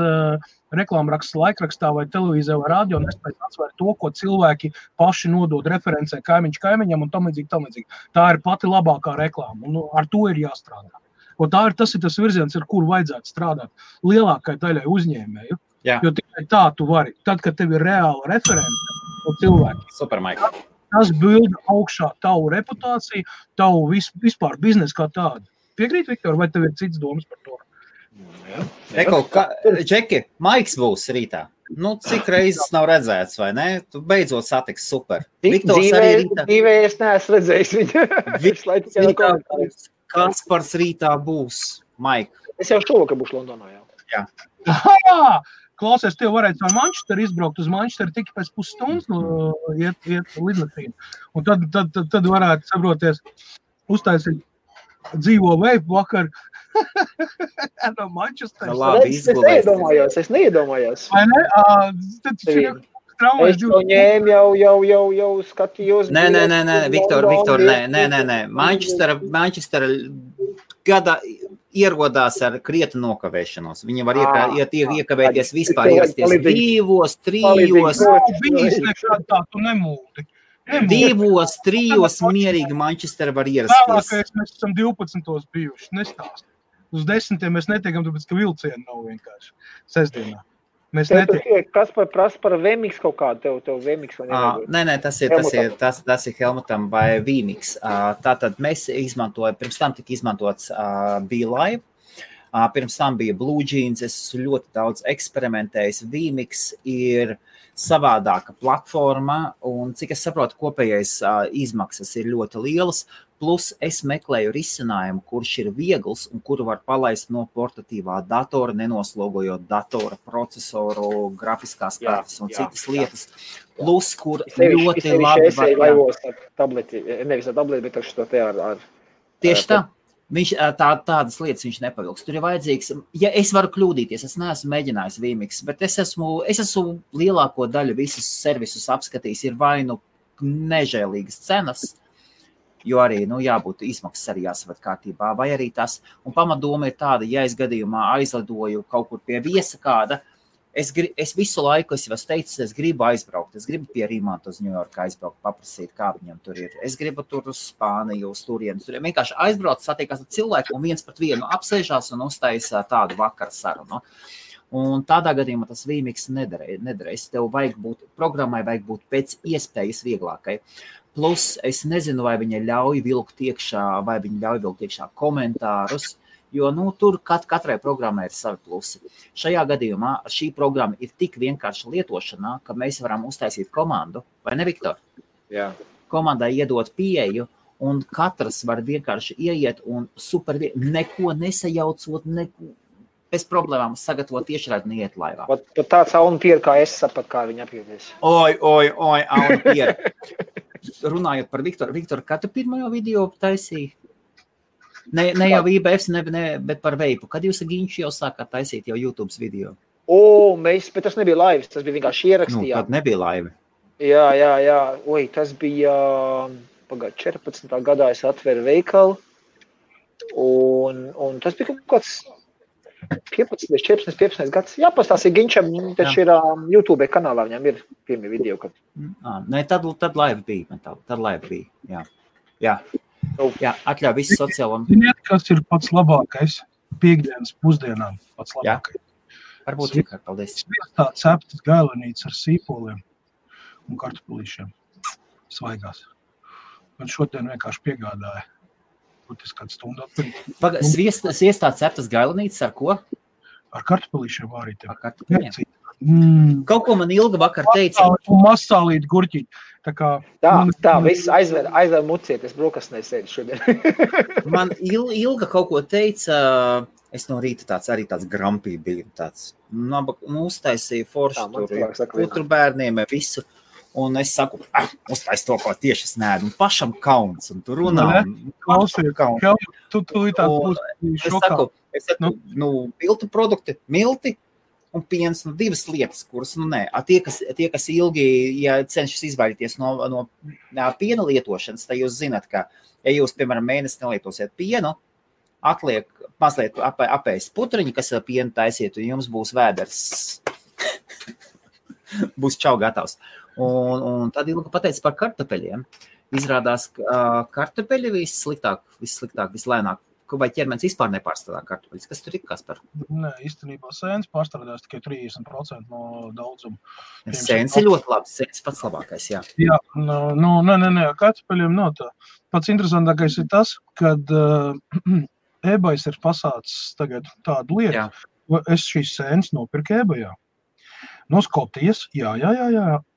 reklāmraksts laikrakstā vai televīzē vai radio nespēj atsvērt to, ko cilvēki paši nodod referencē kaimiņš kaimiņam un tam līdzīgi. Tā ir pati labākā reklāma, un ar to ir jāstrādā. Un tas ir tas virziens, ar kuru vajadzētu strādāt lielākai daļai uzņēmēju, jo tikai tā tu vari. Tad, kad tev ir reāla reference no cilvēki, Super, Mike. Tas bilda augšā tavu reputāciju, tavu vispār biznesu kā tādu. Piekrīt, Viktor, vai tev ir cits domas par to? Eko, Džeki, Maiks būs rītā. Nu, cik reizes nav redzēts, vai ne? Tu beidzot satiks super. Viktors arī rītā. Dzīvē es neesmu redzējis viņu. Kaspars rītā būs, Maik. Es jau šovakar būšu Londonā, Jā. Klausies, tev varētu no Manchesteru izbraukt uz Manchesteru tikai pēc pusstundas iet lidmašīnu. Un tad varētu saproties, uztaisīt dzīvo veipu vakar no Manchesteru. Es neiedomājos. Vai ne? Es to ņēmu jau skatījos. Nē, Viktor, nē. Manchestera gada ierodās ar krietnu nokavēšanos. Viņi var iekavēties vispār ierasties 2, 3. Bijis nekād tā, tu nemūdi. 2, 3 mierīgi Manchestera var ierasties. Vēlākais mēs esam 12. bijuši, nestāst. Uz 10. mēs netiekam, tāpēc, ka vilcieni nav vienkārši sestdienā. Kas prasa par VMix kaut kādu? Tev VMix vai nevajag? Nē, tas ir Helmutam vai VMix. Tātad mēs izmantojam, pirms tam tika izmantots BeLive, pirms tam bija Blue Jeans, es ļoti daudz eksperimentējis. VMix ir savādāka platforma, un cik es saprotu, kopējais izmaksas ir ļoti lielas, plus es meklēju risinājumu, kurš ir viegls un kuru var palaist no portatīvā datora, nenoslogojot datora procesoru, grafiskās kartes un citas lietas. Plus, kur ļoti labi var... laivos ar tableti, nevis ar tableti, bet ar šo te ar... Tieši tā. Tādas lietas viņš nepavilks. Tur ir vajadzīgs, ja es varu kļūdīties, es neesmu mēģinājis VMix, bet es esmu lielāko daļu visus servisus apskatījis, ir vai nu nežēlīgas cenas, jo arī, jābūt izmaksas arī jāsavat kārtībā, vai arī tas, un pamatdoma ir tāda, ja es gadījumā aizlidoju kaut kur pie viesa kāda, es visu laiku, es jau teicu, es gribu aizbraukt, es gribu pie Rīmanta uz Ņujorku aizbraukt, paprasīt, kā viņam tur ir, es gribu tur uz Spāniju, uz turienes, vienkārši aizbraukt, satiekās ar cilvēku un viens pret vienu apsēžās un uztaisa tādu vakara sarunu. Un tādā gadījumā tas VMix nederēs, tev programmai vajag būt pēc iespējas vieglākai. Plus, es nezinu, vai viņa ļauj vilkt iekšā komentārus, jo tur katrai programmai ir savi plusi. Šajā gadījumā šī programma ir tik vienkārša lietošanā, ka mēs varam uztaisīt komandu, vai ne, Viktor? Jā. Komandai iedot pieeju, un katrs var vienkārši ieiet un neko nesajaucot, bez problēmām sagatavot tiešraidi un iet laivā. Pat tāds Auna Piera, kā es sapat, kā viņa apjūties. Oi, Auna Piera. Runājot par Viktoru. Viktor, kā tu pirmajo video taisīji? Ne jau IBFs, bet par veipu. Kad jūs ar Ginču jau sākāt taisīt jau YouTube video? Bet tas nebija laivs, tas bija vienkārši ierakstījā. Tad nebija laivi. Jā. Tas bija 14. gadā es atveru veikalu. Un tas bija kaut kāds 15 gads. Jāpastāstīja Ginčam, taču ir YouTube kanālā, viņam ir pirmie video. Tad laiva bija. Tad laiva bija, jā. Atļauj visu sociālo. Ziniet, kas ir pats labākais piekdienas pusdienām? Pats labākais. Varbūt tikai, paldies. Tā ceptas gailenītes ar sīpoliem un kartupulīšiem svaigās. Man šodien vienkārši piegādāja. Būtis kādu stundu atpēc. Sviestā ceptas gailenītes ar ko? Ar kartupulīšiem vārītiem. Ar kartupulīšiem. Kaut ko man Ilga vakar teica. Un masālīt gurķīt. Tā, viss aizver muciet, es brokastnē sēdu šodien. Man Ilga kaut ko teica, es no rīta tāds grampī biju, uztaisīju foršu putru bērniem, visu. Un es saku, uztais to, ko tieši es neēdu, un pašam kauns, un tu runā. Tu tā būs šokā. Es saku, miltu produkti, milti, un piens, divas lietas, kuras, nē, tie, kas ilgi, ja cenšas izvairīties no piena lietošanas, tad jūs zināt, ka, ja jūs, piemēram, mēnesi nelietosiet pienu, atliek mazliet apēst putriņu, kas ar pienu taisiet, un jums būs vēders. Būs čau gatavs. Un tad Ilga pateica par kartupeļiem. Izrādās, ka kartupeļi vissliktāk, vislēnāk. Vai ķermenis vispār nepārstrādā kartupeļus? Kas tur ir, Kaspar? Nē, īstenībā sēnes pārstrādās tikai 30% no daudzuma. Sēnes ir ļoti labi, sēnes pats labākais, jā. Jā, nē, kartupeļiem nav tā. Pats interesantākais ir tas, kad eBay's ir pasācis tagad tādu lietu. Jā. Es šīs sēnes nopirku eBayā. No Skotijas, jā,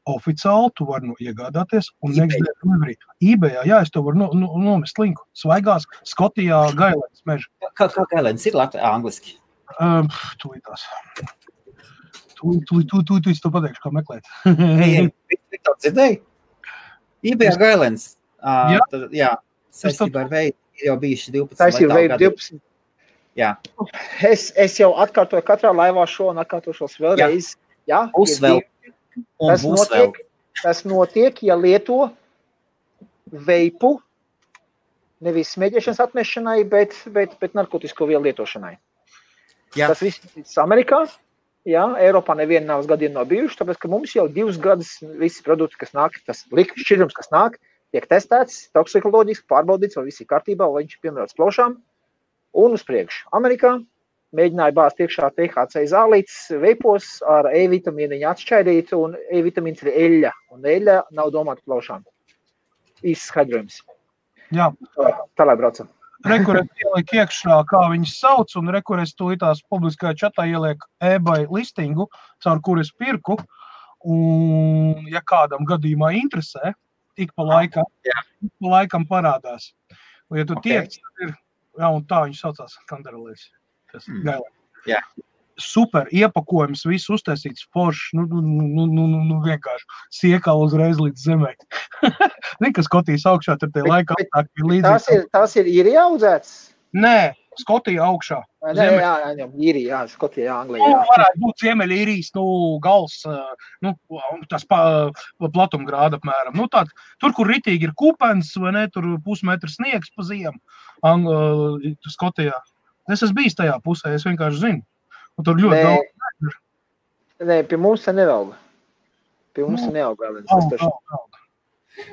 oficiāli tu vari iegādāties un eBayā, jā, es to varu nomest linku. Svaigās Skotijā Gailēns meža. Kā Gailēns ir angliski? Tūlītās. Tūlīt to pateikšu, kā meklēt. Viktor, dzirdēji? eBayā Gailēns. Jā, saistībā ar veidu ir jau bijuši 12. Saistībā ar veidu 12. Jā. Es jau atkārtoju katrā laivā šo un atkārtošos vēlreiz. Jā, būs vēl. Tas notiek, ja lieto veipu, nevis smēķēšanas atmešanai, bet narkotisko vielu lietošanai. Jā. Tas viss Amerikā, jā, Eiropā neviena nav gadiem nav bijuši, tāpēc, ka mums jau 2 gadus visi produkti, kas nāk, tas šķidrums, kas nāk, tiek testēts, toksikoloģiski pārbaudīts, vai viss ir kārtībā, vai viņš ir piemērots plošām, un uz priekšu. Amerikā mēģināja bāzt iekšā THC zālītes veipos ar E-vitamīniņu atšķaidīt, un E-vitamīns ir eļļa, un eļļa nav domāta plaušām. Īsts skaidrojums. Jā. Tālāk braucam. Rekurēt ieliek iekšā, kā viņas sauc, un rekurēt tūlītās publiskajā čatā ieliek eBay listingu, caur kur es pirku, un ja kādam gadījumā interesē, ik pa laikam parādās. Un ja tu tiec, tad ir, jā, un tā viņš saucās Kanderlēs. Jā. Super iepakojums, viss uztaisīts foršs, vienkārši siekala uzreiz līdz zemē. Kas Skotijas augšā, tad tie laika aptāki ir līdzīgi. Tas ir īrijā audzēts? Nē, Skotija augšā. Jā, īrijā, Skotija, Anglijā. Varētu būt Ziemeļīrijas, gals, tas platumgrāda apmēram. Tur, kur ritīgi ir kupens, vai ne, tur pusmetru sniegs pa ziemu, Skotijā. Es esmu bijis tajā pusē, es vienkārši zinu. Un tur ļoti daudz. Nē, pie mums te nevelga. Pie mums te nevelga.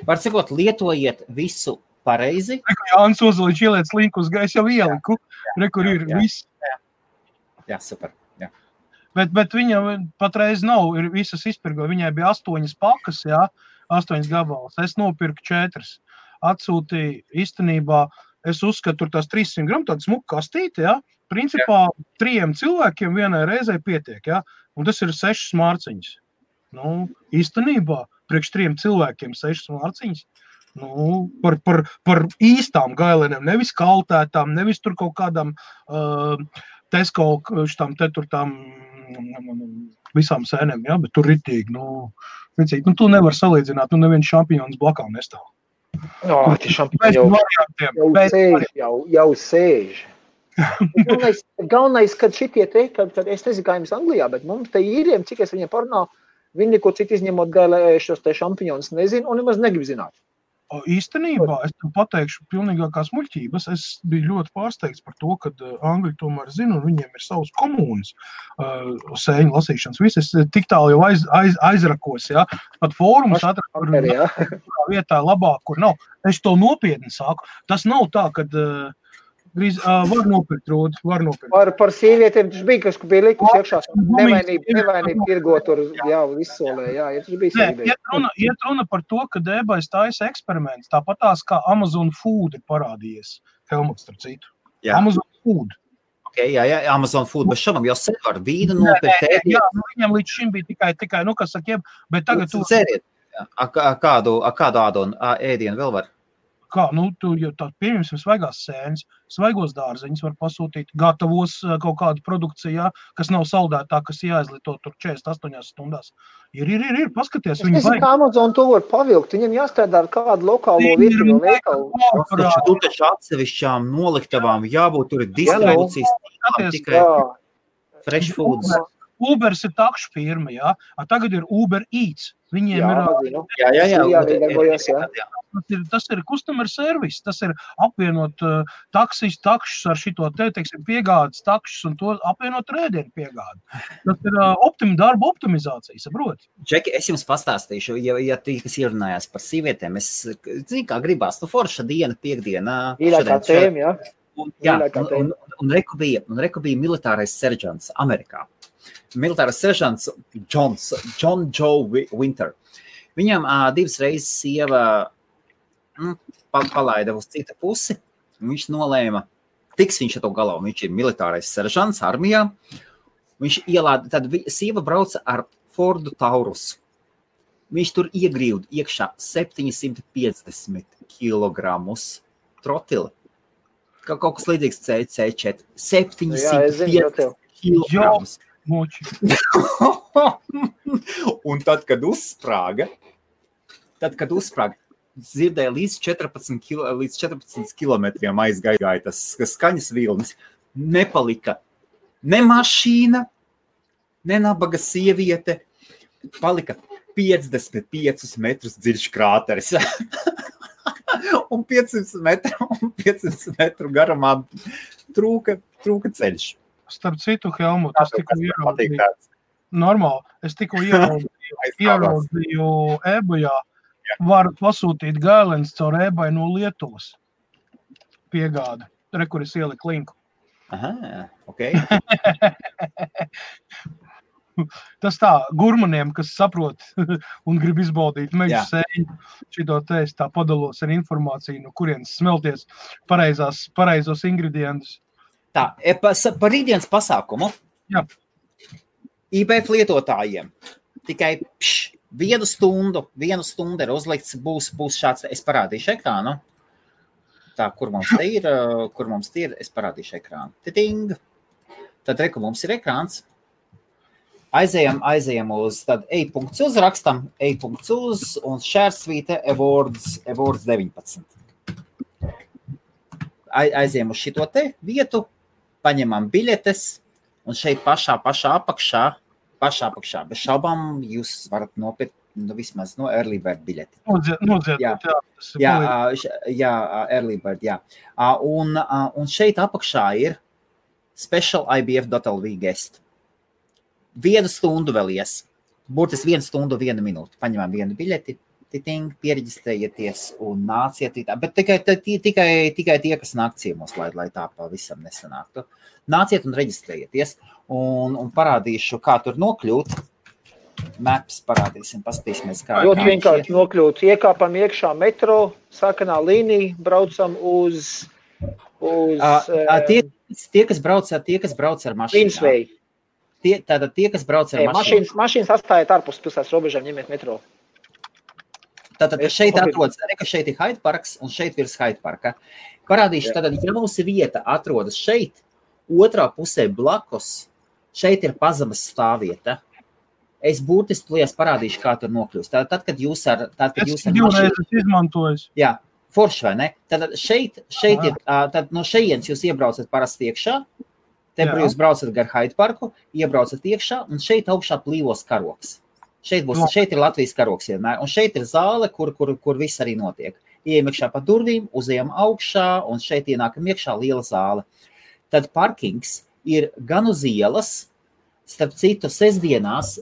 Var cikot, lietojiet visu pareizi. Jānis Ozoliņš ieliec linku uz gaisu, jau ieliku. Rekur ir viss. Jā, super. Jā. Bet viņa patreiz nav, ir visas izpirgo. Viņai bija 8 pakas, 8 gabalas. Es nopirku 4. Atsūtīju īstenībā. Es uzskatu, tur tās 300 gramu, tāda smuka kastīte, principā 3 cilvēkiem vienai reizei pietiek, un tas ir 6 mārciņas. Īstenībā, priekš 3 cilvēkiem 6 mārciņas, par īstām gailenēm, nevis kaltētām, nevis tur kaut kādām Tesco, tām visām sēnēm, bet tur ritīgi, tu nevar salīdzināt, neviens šampiņons blakām nestāv. Jau sēž. Galvenais, kad šitie te, kad es nezinu, kā jums Anglijā, bet mums te īriem, cik es viņiem parunāju, viņi neko citu izņemot gailējušos te šampiņonus nezinu un nemaz negrib zināt. Īstenībā, es tev pateikšu pilnīgākās muļķības. Es biju ļoti pārsteigts par to, kad Angļi tomēr zina, un viņiem ir savas komūnas sēņu lasīšanas. Viss es tik tālu jau aizrakos, pat fórumus atradu, kur vietā labāk, kur nav. Es to nopietni sāku. Tas nav tā, kad var nopirkt, Rūdi, var nopirkt. Par sīvietiem tas bija, kas bija likus iekšā. Nevainība tirgo tur, vissolē, tas bija sīvieti. Iet runa par to, ka eBay taisa eksperiments, tāpatās kā Amazon Food ir parādījies. Helmuts, starp citu. Amazon Food. Jā, Amazon Food, bet šodien jau sen var vīnu nopirkt. Viņam līdz šim bija tikai kas sakiem, bet tagad tu... Ceriet, kādu ādonu ēdienu vēl var? Kā, tu jau tā pieņemsim svaigās sēnes, svaigos dārzeņus var pasūtīt, gatavos kaut kādu produkciju, kas nav saldētā, kas jāizlieto tur 48 stundās. Ir, paskaties. Es nezinu, kā Amazon to var pavilkt, viņam jāstrādā ar kādu lokālo vietu veikalu. Tu taču atsevišķām noliktavām jābūt, tur ir distribūcijas, tikai fresh foods. Ubers ir takšu firma, jā. Tagad ir Uber Eats. Viņiem tas ir customer service, tas ir apvienot takšus ar šito teiksim, piegādes takšus un to apvienot rēdienu piegādi. Tas ir darba optimizācija, saproti? Džeki, es jums pastāstīšu, ja tīkas ierunājās par sīvietēm, es zinu, kā gribās, forša diena, piekdiena. Īlākā tēma, jā. Jā, un reku bija militārais seržants Amerikā. Militārais seržants John Joe Winter. Viņam 2 reizes sieva palaida uz citu pusi, un viņš nolēma, tiks viņš ar to galā, viņš ir militārais seržants armijā, viņš ielāda, tad sieva brauca ar Fordu Taurus. Viņš tur iegrīvd iekšā 750 kilogramus trotila. Kaut kas līdzīgs C4. 750 kilogramus. Un tad, kad uzsprāga, dzirdēja līdz 14 kilometriem aizgāja tas skaņas vilnis. Nepalika ne mašīna, ne nabaga sieviete. Palika 55 metrus dziļš krāteris. Un 500 metru garumā trūka ceļš. Starp citu, Helmut, es tikko ieraudzīju. Normāli, es tikko ieraudzīju eBayā. Varu pasūtīt gālens caur eBay no Lietuvas. Piegāda. Kur es ieliku linku. Aha, ok. Tas tā, gurmaniem, kas saprot un grib izbaudīt mežu sēņu, šito te es tā padalos ar informāciju, no kurienes smelties pareizos ingredientus. Tā, par rītdienas pasākumu. Jā. IBF lietotājiem tikai 1 stundu ir uzlikts, būs šāds, es parādīšu ekrānu. Tā, kur mums te ir, es parādīšu ekrānu. Titing. Tad reku mums ir ekrāns. Aizējam uz, tad ej.uz rakstam, ej.uz un šērsvīte Awards 19. Aizējam uz šito te vietu, paņemam biļetes un šeit pašā apakšā, bez šaubām jūs varat nopirkt vismaz Early Bird biļeti. Jā, Early Bird, jā. Un šeit apakšā ir Special IBF.lv guest. 1 stundu vēl ies. Burtiski 1 stundu, 1 minūte. Paņemam 1 biļeti, piereģistrējieties un nāciet. Bet tikai tie, kas nāk ciemos, lai tā pavisam nesanāktu. Nāciet un reģistrējieties. Un parādīšu, kā tur nokļūt. Maps parādīsim, paskatīsimies, kā. Ļoti vienkārši nokļūt. Iekāpam iekšā metro, sarkanā līnija, braucam uz tie, kas brauc ar mašīnām. Vinsvei. Tātad tie, kas brauc ar mašīnu. Mašīnas atstājiet ārpus pilsētas robežām, ņemiet metro. Tātad šeit atrodas, šeit ir Hyde Parks un šeit virs Hyde Parka. Parādīšu, tātad, ja mūsu vieta atrodas šeit, otrā pusē blakus, šeit ir pazemes stāvvieta. Es burtiski tulies parādīšu, kā tur nokļūst. Tātad, kad jūs ar mašīnu izmantojas. Jā, forši vai ne? Tātad šeit ir, tad no šejienes jūs iebraucat parasti iekšā. Te jūs braucat gar Hyde Parku, iebraucat iekšā, un šeit augšā plīvos karoks. Šeit ir Latvijas karoks vienmēr, un šeit ir zāle, kur viss arī notiek. Ejam iekšā pa durvīm, uzejam augšā, un šeit ienākam iekšā liela zāle. Tad parkings ir gan uz ielas, starp citu, sestdienās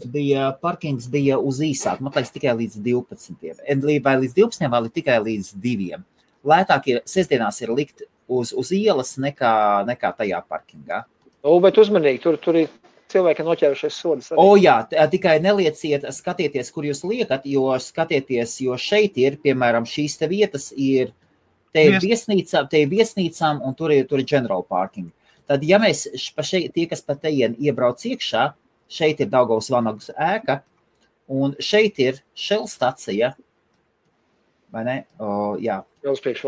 parkings bija uz īsāk, man liekas tikai līdz 12. Vai līdz 12, vai tikai līdz 2. Lētāk sestdienās ir likt uz ielas nekā tajā parkingā. Bet uzmanīgi, tur ir cilvēki noķērušies sodas. Jā, tikai nelieciet, skatieties, kur jūs liekat, jo šeit ir, piemēram, šīs te vietas ir, te ir viesnīcām un tur ir general parking. Tad, ja mēs tie, kas pa teien iebrauc iekšā, šeit ir Daugavas Vanagas ēka, un šeit ir Shell stacija, vai ne? Jā. Vēl priekš.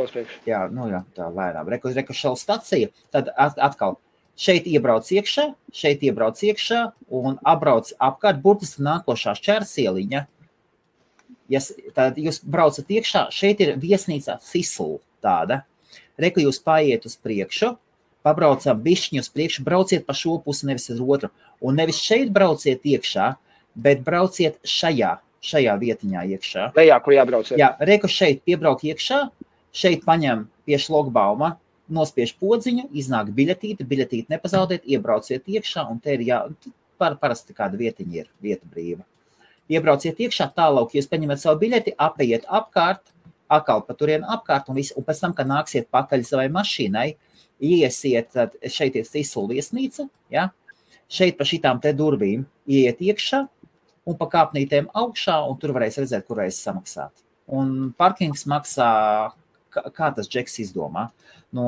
Jā, tā lēnām. Reku Shell stacija, tad atkal šeit iebrauc iekšā un apbrauc apkārt burtiski nākošā šķērsieliņa. Tad jūs braucat iekšā, šeit ir viesnīca Thistle tāda. Reku jūs paiet uz priekšu, pabraucam bišķiņu uz priekšu, brauciet pa šo pusi, nevis uz otru. Un nevis šeit brauciet iekšā, bet brauciet šajā vietiņā iekšā. Lejā, kur jābrauc. Jā, reku šeit piebrauk iekšā, šeit paņem pie šlogbauma, nospiež podziņu, iznāk biļetīti nepazaudēt, iebrauciet iekšā, un te ir parasti kāda vietiņa ir, vieta brīva. Iebrauciet iekšā, tālāk jūs paņemat savu biļeti, apeiet apkārt, atkal pa turienu apkārt, un pēc tam, kad nāksiet pakaļ savai mašīnai, iesiet, tad šeit ir Tisula viesnīca, ja? Šeit pa šitām te durvīm ieiet iekšā un pa kāpnītēm augšā, un tur varēs redzēt, kur varēs samaksāt. Un parkings maksā, kā tas Džeks izdomā, no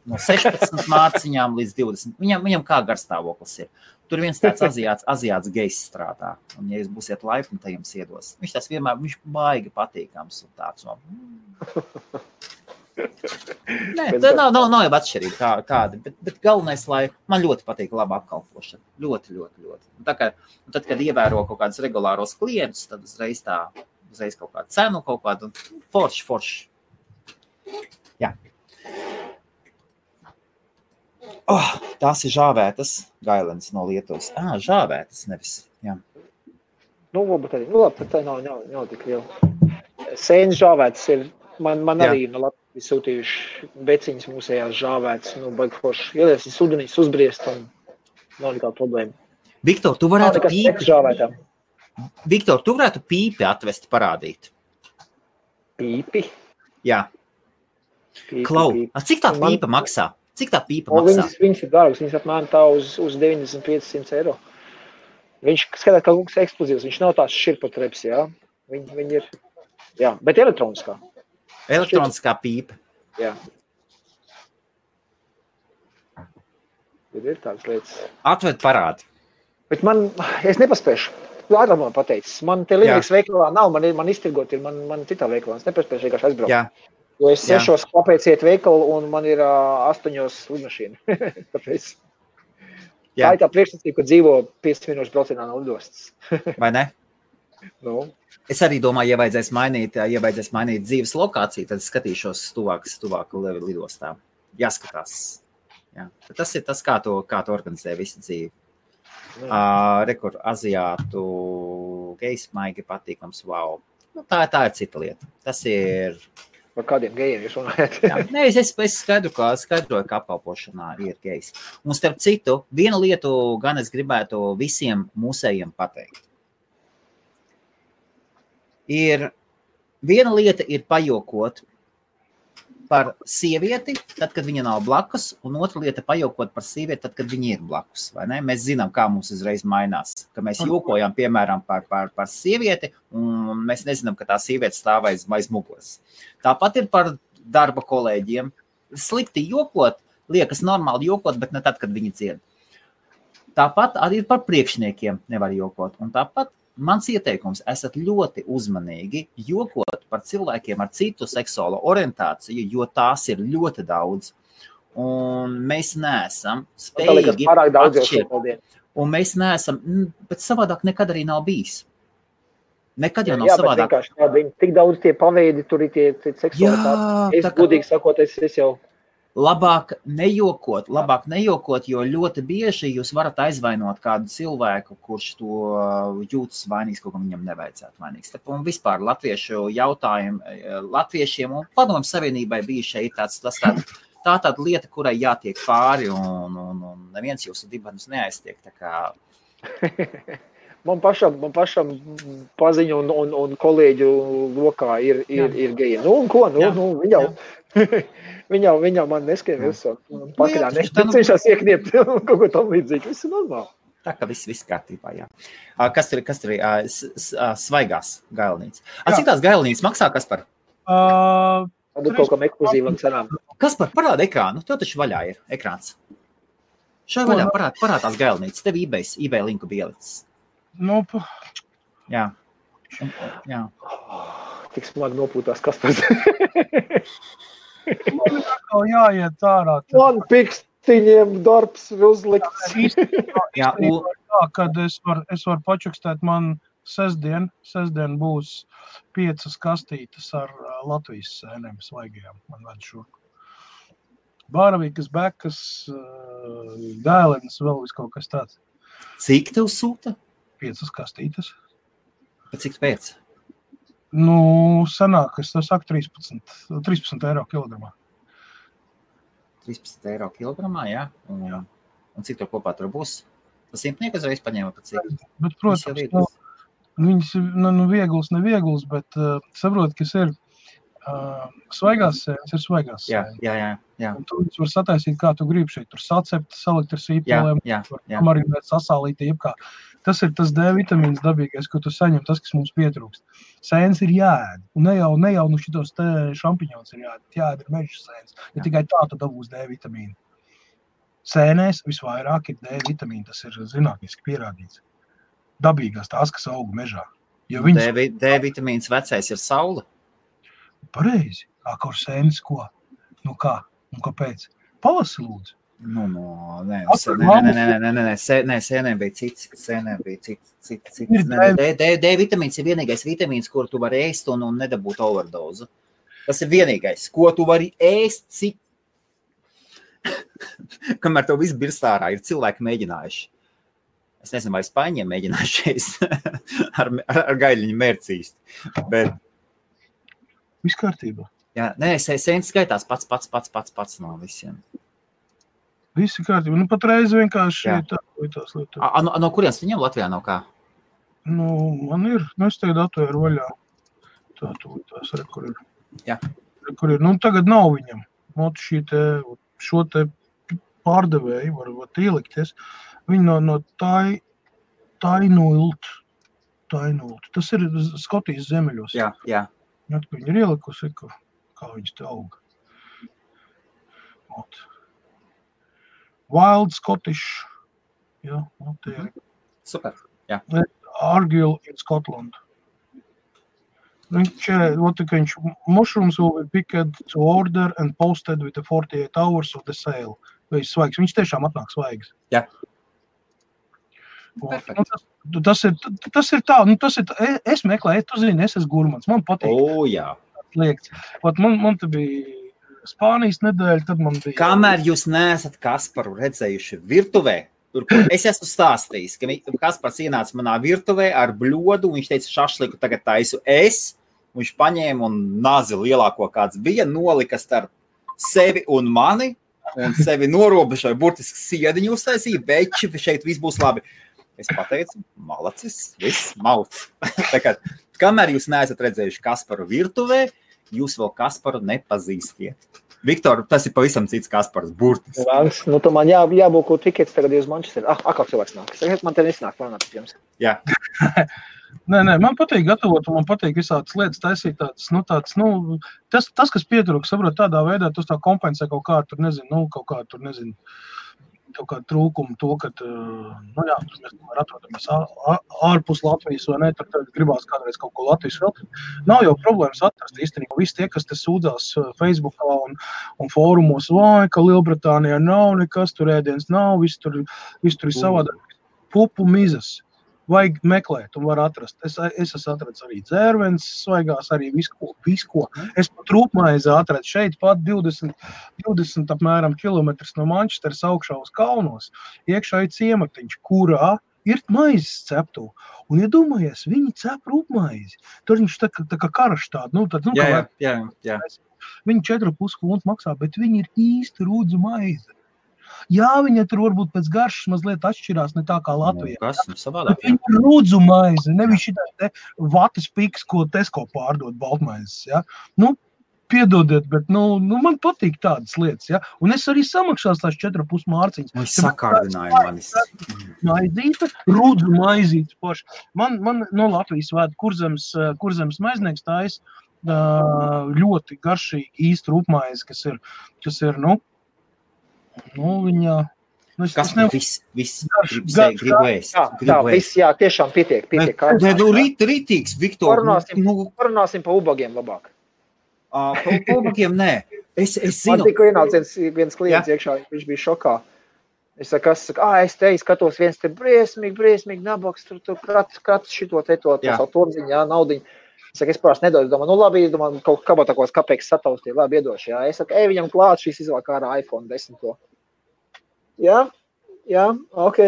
16 mārciņām līdz 20. Viņam kā garstāvoklis ir. Tur viens tāds aziāts gejs strādā, un ja jūs būsiet laipni, tad jums iedos. Viņš tas vienmēr, viņš baigi patīkams un tāds no... Nē, tā nav jau atšķirība kādi, bet galvenais, lai man ļoti patīk laba apkalpošana. Ļoti. Tad, kad ievēro kaut kādus regulāros klientus, tad uzreiz kaut kādu cenu, kaut kādu forši. Jā. Tās ir žāvētas gailenes no Lietuvas. Žāvētas nevis, jā. Bet tā nav tik liela. Sēnes žāvētas ir, man arī no Latvijas sūtījuši beciņas mūsējās žāvētas, baigi forši. Ielies ir sudenīs uzbriest un nav nekāda problēma. Viktor, tu varētu pīpi atvest parādīt. Pīpi? Jā. Klau, cik tā pīpa maksā? Cik tā pīpa maksā? Viņas ir dārgas, viņas apmēram tā uz 95-100 eiro. Viņš skatās kā lūks eksplozīvs, viņš nav tās širpotreps, jā. Viņi ir, jā, bet elektroniskā. Elektroniskā pīpa. Jā. Ir tādas lietas. Atved parādi. Bet es nepaspēšu. Ātrāk man pateicis. Man te Linux veikalā nav, man iztirgot ir, man citā veikalā. Es nepaspēšu vienkārši aizbraukt. Jā. Jo es 6 kāpēc iet veikalu un man ir 8 lidmašīna. Tāpēc. Jā. Tā ir tā priekšsacība, ka dzīvo 5 minūšu braucienā no lidostas. Vai ne? Nu. Es arī domāju, ja vajadzēs mainīt dzīves lokāciju, tad skatīšos tuvāk lidostām. Jāskatās. Jā. Tas ir tas, kā tu organizē visu dzīvi. Rekur, aziātu gejs maigi patīkams, wow. Tā ir cita lieta. Tas ir... Par kādiem gejiem jūs runājat? Nē, es skaidroju, ka apkalpošanā ir gejs. Un starp citu, vienu lietu gan es gribētu visiem mūsējiem pateikt. Viena lieta ir pajokot par sievieti, tad, kad viņa nav blakus, un otra lieta pajokot par sievieti, tad, kad viņa ir blakus. Vai ne? Mēs zinām, kā mums uzreiz mainās, ka mēs jokojam, piemēram, par sievieti, un mēs nezinām, ka tā sieviete stāv aiz muguras. Tāpat ir par darba kolēģiem. Slikti jokot, liekas normāli jokot, bet ne tad, kad viņi dzied. Tāpat arī par priekšniekiem nevar jokot, un tāpat mans ieteikums, esat ļoti uzmanīgi jokot par cilvēkiem ar citu seksuālo orientāciju, jo tās ir ļoti daudz. Un mēs neesam spējīgi atšķirt. Un mēs neesam, bet savādāk nekad arī nav bijis. Nekad jau nav savādāk. Jā, bet tik daudz tie paveidi, tur ir tie seksualitāti. Es godīgi sakot, es jau... Labāk nejokot, jo ļoti bieži jūs varat aizvainot kādu cilvēku, kurš to jūtas vainīgs, kaut kam viņam nevajadzētu vainīgs. Un vispār latviešiem un Padomju Savienībai bija šeit tāda lieta, kurai jātiek pāri un neviens jūsu dibenus neaiztiek. Tā kā... Man pašam paziņu un kolēģu lokā ir geji. Un ko? Viņa man neskrien visu. Pakaļā cenšas iekniept kaut ko tam līdzīgi. Viss ir normāli. Tā kā viss kārtībā, jā. Kas tur ir svaigās gailnīcas? Cik tās gailnīcas maksā, Kaspar? Tad kaut kam ekskluzīvam cenām. Kaspar, parāda ekrānu. Tev taču vaļā ir ekrāns. Šai vaļā parāda tās gailnīcas. Tev eBay linku bielicis. Jā. Tik smagi nopūtās Kaspars. Man atkal jāiet ārā. Man pikstiņiem darbs ir uzlikts. Jā, kad es varu pačukstēt, man sestdien būs 5 kastītes ar Latvijas sēnēm svaigajām. Man ved šurku. Bāravīkas, bekas, dēlenes, vēl vis kaut kas tāds. Cik tev sūta? 5 kastītes. Bet cik pēc? Sanāk, es saku 13 eiro kilogramā. 13 eiro kilogramā, jā? Un cik tev kopā tur būs? Tas 100 uzreiz paņēma pat cik? Bet, protams, viņas ir viegls, bet saprot, kas ir svaigās sēnes, ir svaigās sēnes. Jā. Un tu var sataisīt, kā tu gribi šeit. Tur sacept, salikt ar sīpolēm, marinēt, sasālīt, jebkā. Tas ir tas D vitamīns dabīgais, ko tu saņem, tas, kas mums pietrūkst. Sēnes ir jāēd. Un ne jau šitos te šampiņons ir jāēd. Jāēd ir meža sēnes. Ja tikai tā tu dabūs D vitamīnu. Sēnēs visvairāk ir D vitamīna, tas ir zinātniski pierādīts. Dabīgās tās, kas aug mežā. Ja D vitamīns vecais ir saule? Pareizi. Kur sēnes ko? Kā? Un kāpēc? Palasi lūdzu. Sēnēm bija cits. D vitamīns ir vienīgais vitamīns, kur tu vari ēst un nedabūt overdozu. Tas ir vienīgais, ko tu vari ēst, cik kamēr tev viss birstārā ir cilvēki mēģinājuši. Es nezinu, vai Spāņiem mēģinājušies ar gaļiņu mērcīst. Bet... Viss kārtībā. Jā, sēnes skaitās pats no visiem. Visi kārtībā. Patreiz vienkārši tās lietas. No kurienes viņam Latvijā nav kā? Man ir. Es tagad atvēru vaļā. Tās kur ir. Jā. Kur ir. Tagad nav viņam. Šo te pārdevēju var ielikties. Viņi no Tainult. Tas ir Skotijas zemeļos. Jā. Viņi ir ielikusi, kā viņas te auga. Wild Scottish. Jā, te ir. Super, jā. Argyll in Scotland. Mushrooms will be picked to order and posted with the 48 hours of the sale. Vai svaigs. Viņš tiešām atnāk svaigs. Jā. Tas ir tā. Es meklēju, tu zini, es esmu gurmans. Man patīk. Jā. Liekts. Man te bija Spānijas nedēļa, tad man bija... Kamēr jūs neesat Kasparu redzējuši virtuvē, tur, kur es esmu stāstījis, ka Kaspars ienāca manā virtuvē ar bļodu, viņš teica, šašliku tagad taisu es, viņš paņēma un nazi lielāko kāds bija, nolika starp sevi un mani, un sevi norobežoja, burtiski siediņu uztaisīja, beči, šeit viss būs labi. Es pateicu, malacis, viss mauts. Kamēr jūs neesat redzējuši Kasparu virtuvē, jūs vēl Kasparu nepazīstiet. Viktor, tas ir pavisam cits Kaspars, burtis. Tu man jābūt tikets tagad uz Manchester. Kā cilvēks nāk? Man te nesanāk planāt ar jums. Jā. Nē, man patīk gatavot, un man patīk visādas lietas taisīt tāds, tas, kas pietrūks, saprot, tādā veidā, tas tā kompensē kaut kādu trūkumu to, ka, mēs atrodamies ārpus Latvijas, vai ne, tad gribās kādreiz kaut ko Latvijas vēl. Nav jau problēmas atrast īstenībā. Visi tie, kas te sūdzās Facebookā un fórumos, ka Lielbritānijā nav nekas, tur ēdienas nav, viss tur ir savādāk. Pupu mizas. Vajag meklēt un var atrast. Es esmu atradis arī dzērvenes svaigās, arī visko. Es pat rūpmaizi atradu šeit pat 20 apmēram kilometrus no Manchesteras augšā uz kalnos. Iekšā ir ciematiņš, kurā ir maizes ceptu. Un, ja domājies, viņi cep rūpmaizi. Tur viņš tā kā karaš tādu. Jā. Viņi 4,5 kronus maksā, bet viņi ir īsti rūdzu maize. Jā, viņa tur varbūt pēc garšas mazliet atšķirās, ne tā kā Latvijā. Kas savādāk? Viņa ir rūdzu maize, nevis šitā te vatas piks, ko Tesco pārdod baltmaizes, ja. Piedodiet, bet, man patīk tādas lietas, ja. Un es arī samaksās tās 4,5 mārciņas. Man sakārdināja manis. Maizīte, rūdzu maizītes paši. Man no Latvijas vēd Kurzemes maiznieks tais ļoti garšīgi īsti rūpmaizi, kas ir, viņa... Kas viss gribu ēst? Jā, tiešām pietiek. Rītīgs, Viktor. Parunāsim pa ubagiem labāk. Pa ubagiem, nē. Es zinu. Man tikko ienāca viens klients iekšā, viņš bija šokā. Es te skatos viens te briesmīgi nabaks, tur krats šito te to savu torziņu, naudiņu. Saka, es parasti nedodu, domāju, labi, kaut kabatakos kapeiks sataustīja, labi, iedošu, jā. Es saku, viņam klāt šis izvēl kā ar iPhone 10. Jā, ok.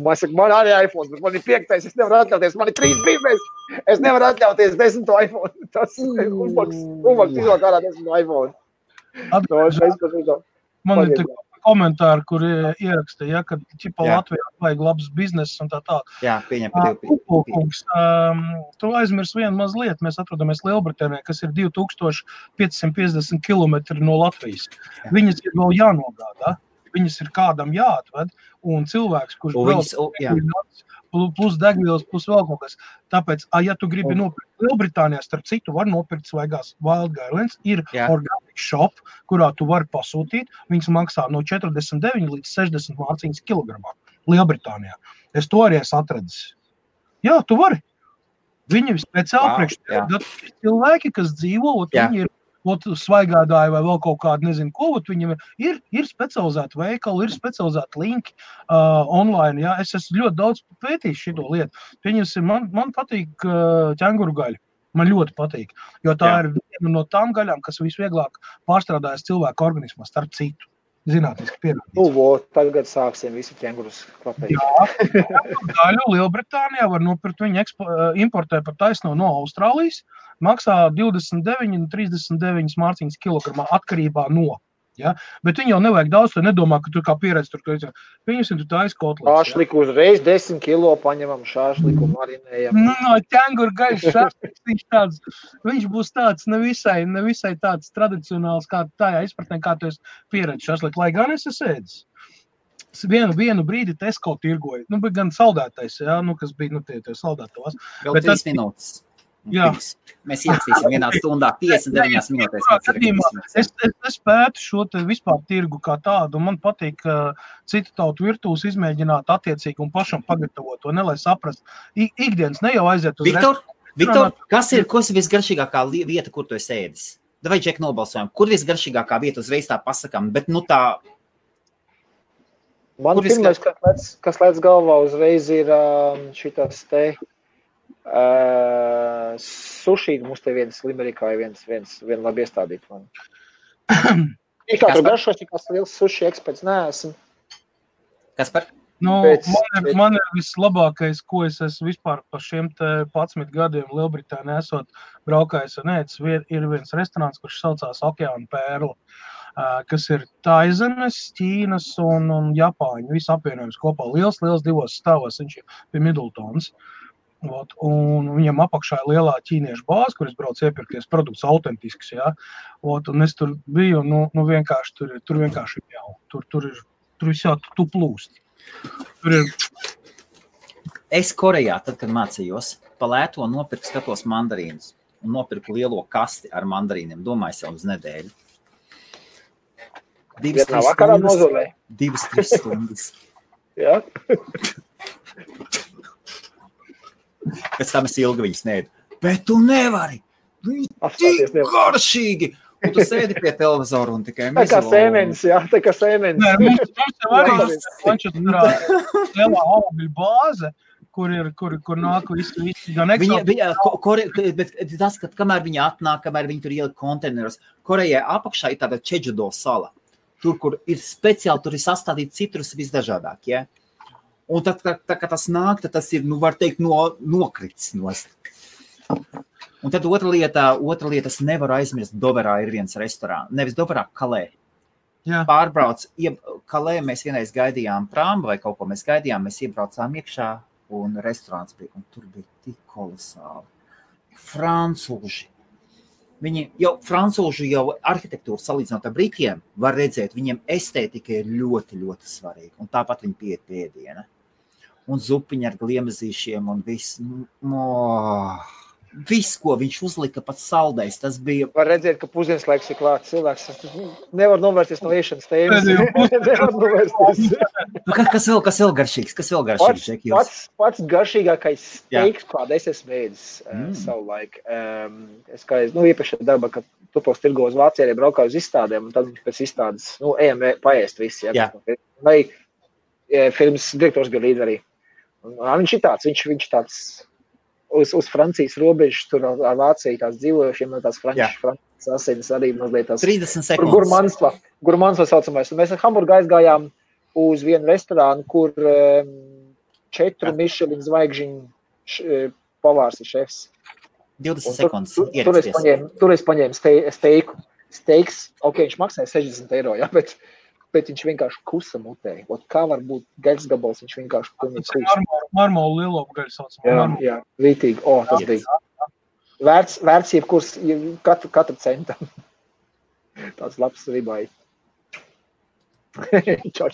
Man saka, man arī iPhone, bet man ir 5, es nevaru atļauties, man ir 3 biznes, es nevaru atļauties 10 iPhone. Tas umbaks izvēl kā ar 10 iPhone. Man ir komentāri, kur ieraksta, ja, ka ķipa Latvijā vajag labs bizness un tā. Jā, pieņem par Kupulkungs, tu aizmirs vienu mazliet, mēs atrodamies Lielbritānijā, kas ir 2550 kilometri no Latvijas. Viņas ir vēl jānogādā, viņas ir kādam jāatved, un cilvēks, kurš plus degvielas, plus vēl kaut kas. Tāpēc, ja tu gribi nopirkt Lielbritānijā, starp citu, var nopirkt svaigās Wild Garlands, ir organic shop, kurā tu vari pasūtīt, viņas maksā no 49 līdz 60 mārciņas kilogramā Lielbritānijā. Es to arī esmu atradzis. Jā, tu vari. Viņi speciāli priekš cilvēki, kas dzīvo, viņi ir svaigādāji vai vēl kaut kādu, nezinu ko, viņam ir specializēti veikali, ir specializēti linki online, jā. Es esmu ļoti daudz pētījis šito lietu. Man patīk ķenguru gaļa. Man ļoti patīk, jo tā ir viena no tām gaļām, kas visvieglāk pārstrādājas cilvēku organismā, starp citu. Zinātniski pierādīts. Tagad sāksim visi ķengurus klapēt. Jā, gaļu Lielbritānijā var nopirkt, viņi importē par taisno no Austrālijas, maksā 29 un 39 mārciņas kilogramā atkarībā no. Ja? Bet viņi jau nevajag daudz, tu nedomā, ka tur kā pieredz tur, ka viņus ir taisa kotlets. Šāšliku uzreiz 10 kilo paņemam, šāšliku marinējam. No ķenguru gaļas šāšliks, viņš būs tāds nevisai tāds tradicionāls, kā tajā izpratnē, kā tu esi pieredz šāšliku, lai gan es ēdis. Vienu brīdi Tesco tirgoja, bet gan saldētais, ja? Kas bija, tie saldētavās. Vēl 3 minūtes. Jā. Mēs ierakstīsim vienā stundā 59 minūtēs. Es pētu šo te vispār tirgu kā tādu, un man patīk citu tautu virtūs izmēģināt attiecīgi un pašam pagatavot to, lai saprast. Ikdienas ne jau aiziet uz Viktor, kas ir visgaršīgākā vieta, kur tu esi ēdis? Vai Džek nobalsojam, kur visgaršīgākā vieta uzreiz tā pasakām, bet tā... Man pirmais, kas lēc galvā uzreiz ir šitas te... suši, mums te viens Limerikā ir viena labi iestādīt man. Ir kā tur garšos, tikās liels suši eksperts, neesmu. Kas par? Man ir vislabākais, ko es esmu vispār par šiem te 11 gadiem Lielbritānijā esot braukājis un ēdis, ir viens restorāns, kurš saucās Okeāna Pērla, kas ir Taizemes, Ķīnas un Japāņu, visu apvienojums kopā. Liels 2 stāvos, viņš ir pie Middletons. Un viņam apakšā ir lielā ķīniešu bāze, kur es braucu iepirkties produkts autentisks, jā. Un es tur biju, vienkārši tur vienkārši jau. Tur visā tu plūst. Tur ir... Es Korejā, tad, kad mācījos, pa lēto nopirku skatos mandarīnus un nopirku lielo kasti ar mandarīniem, domāju sev uz nedēļu. 2-3 stundas. Jā. Pēc tam es ilgi viņus neēdu. Bet tu nevari! Viņi tik garšīgi! Un tu sēdi pie televizoru un tikai tā kā sēmenis, jā, tā kā sēmenis. Nē, mums jau arī lielā augļu bāze, kur nāk visi gan Bet tas, ka kamēr viņi atnāk, kamēr viņi tur ielika konteineros, Korejai apakšā ir tāda Čedžudo sala. Tur, kur ir speciāli, tur ir sastādīti citrus visdažādāk, ja? Un tad, kad tas nāk, tad tas ir, var teikt, nokritis nost. Un tad otra lieta, es nevaru aizmirst, Doverā ir viens restorāns. Nevis Doverā, Kalē. Jā. Pārbrauc, Kalē mēs vienreiz gaidījām prāmu vai kaut ko mēs gaidījām, mēs iebraucām iekšā un restorāns bija, un tur bija tik kolosāli. Francūži. Francūži jau arhitektūru salīdzinot ar Britiem var redzēt, viņiem estētika ir ļoti, ļoti svarīga. Un tāpat viņi pieiet pie ēdiena. Un zupiņi ar gliemezīšiem un viss. Viss, ko viņš uzlika, pats saldējs, tas bija... Var redzēt, ka pusdienas laiks ir klāts cilvēks. Nevar novērsties no iešanas tēmas. Nevar novērsties. Kas vēl garšīgs? Pats garšīgākais steiks, kāda es esmu ēdis savu laiku. Es kā iepriekšējā darba, kad tupos tirgo uz Vācijā, arī braukāju uz izstādēm, un tad pēc izstādes, ejam paēst visi. Ja? Vai firmas direktors bija līdz arī. Un viņš ir tāds, viņš tāds... uz Francijas robežas, tur ar Vāciju tās dzīvojušiem, tās Francijas asinis arī mazliet tās 30 sekundes. Gurmansla saucamais. Un mēs ar Hamburgu aizgājām uz vienu restorānu, kur 4 Michelin zvaigžņu pavārs ir šefs. 20 sekundes. Tur es paņēmu steiku. Steiks, viņš maksāja 60 eiro, jā, bet viņš vienkārši kusa mutē. Kā var būt gaļas gabals, viņš vienkārši kusa. Marmolu lielopu gaļas saucamā. Jā, rītīgi. Tas bija. Vērts jebkurs, katru centam. Tāds labs ribai. Čau.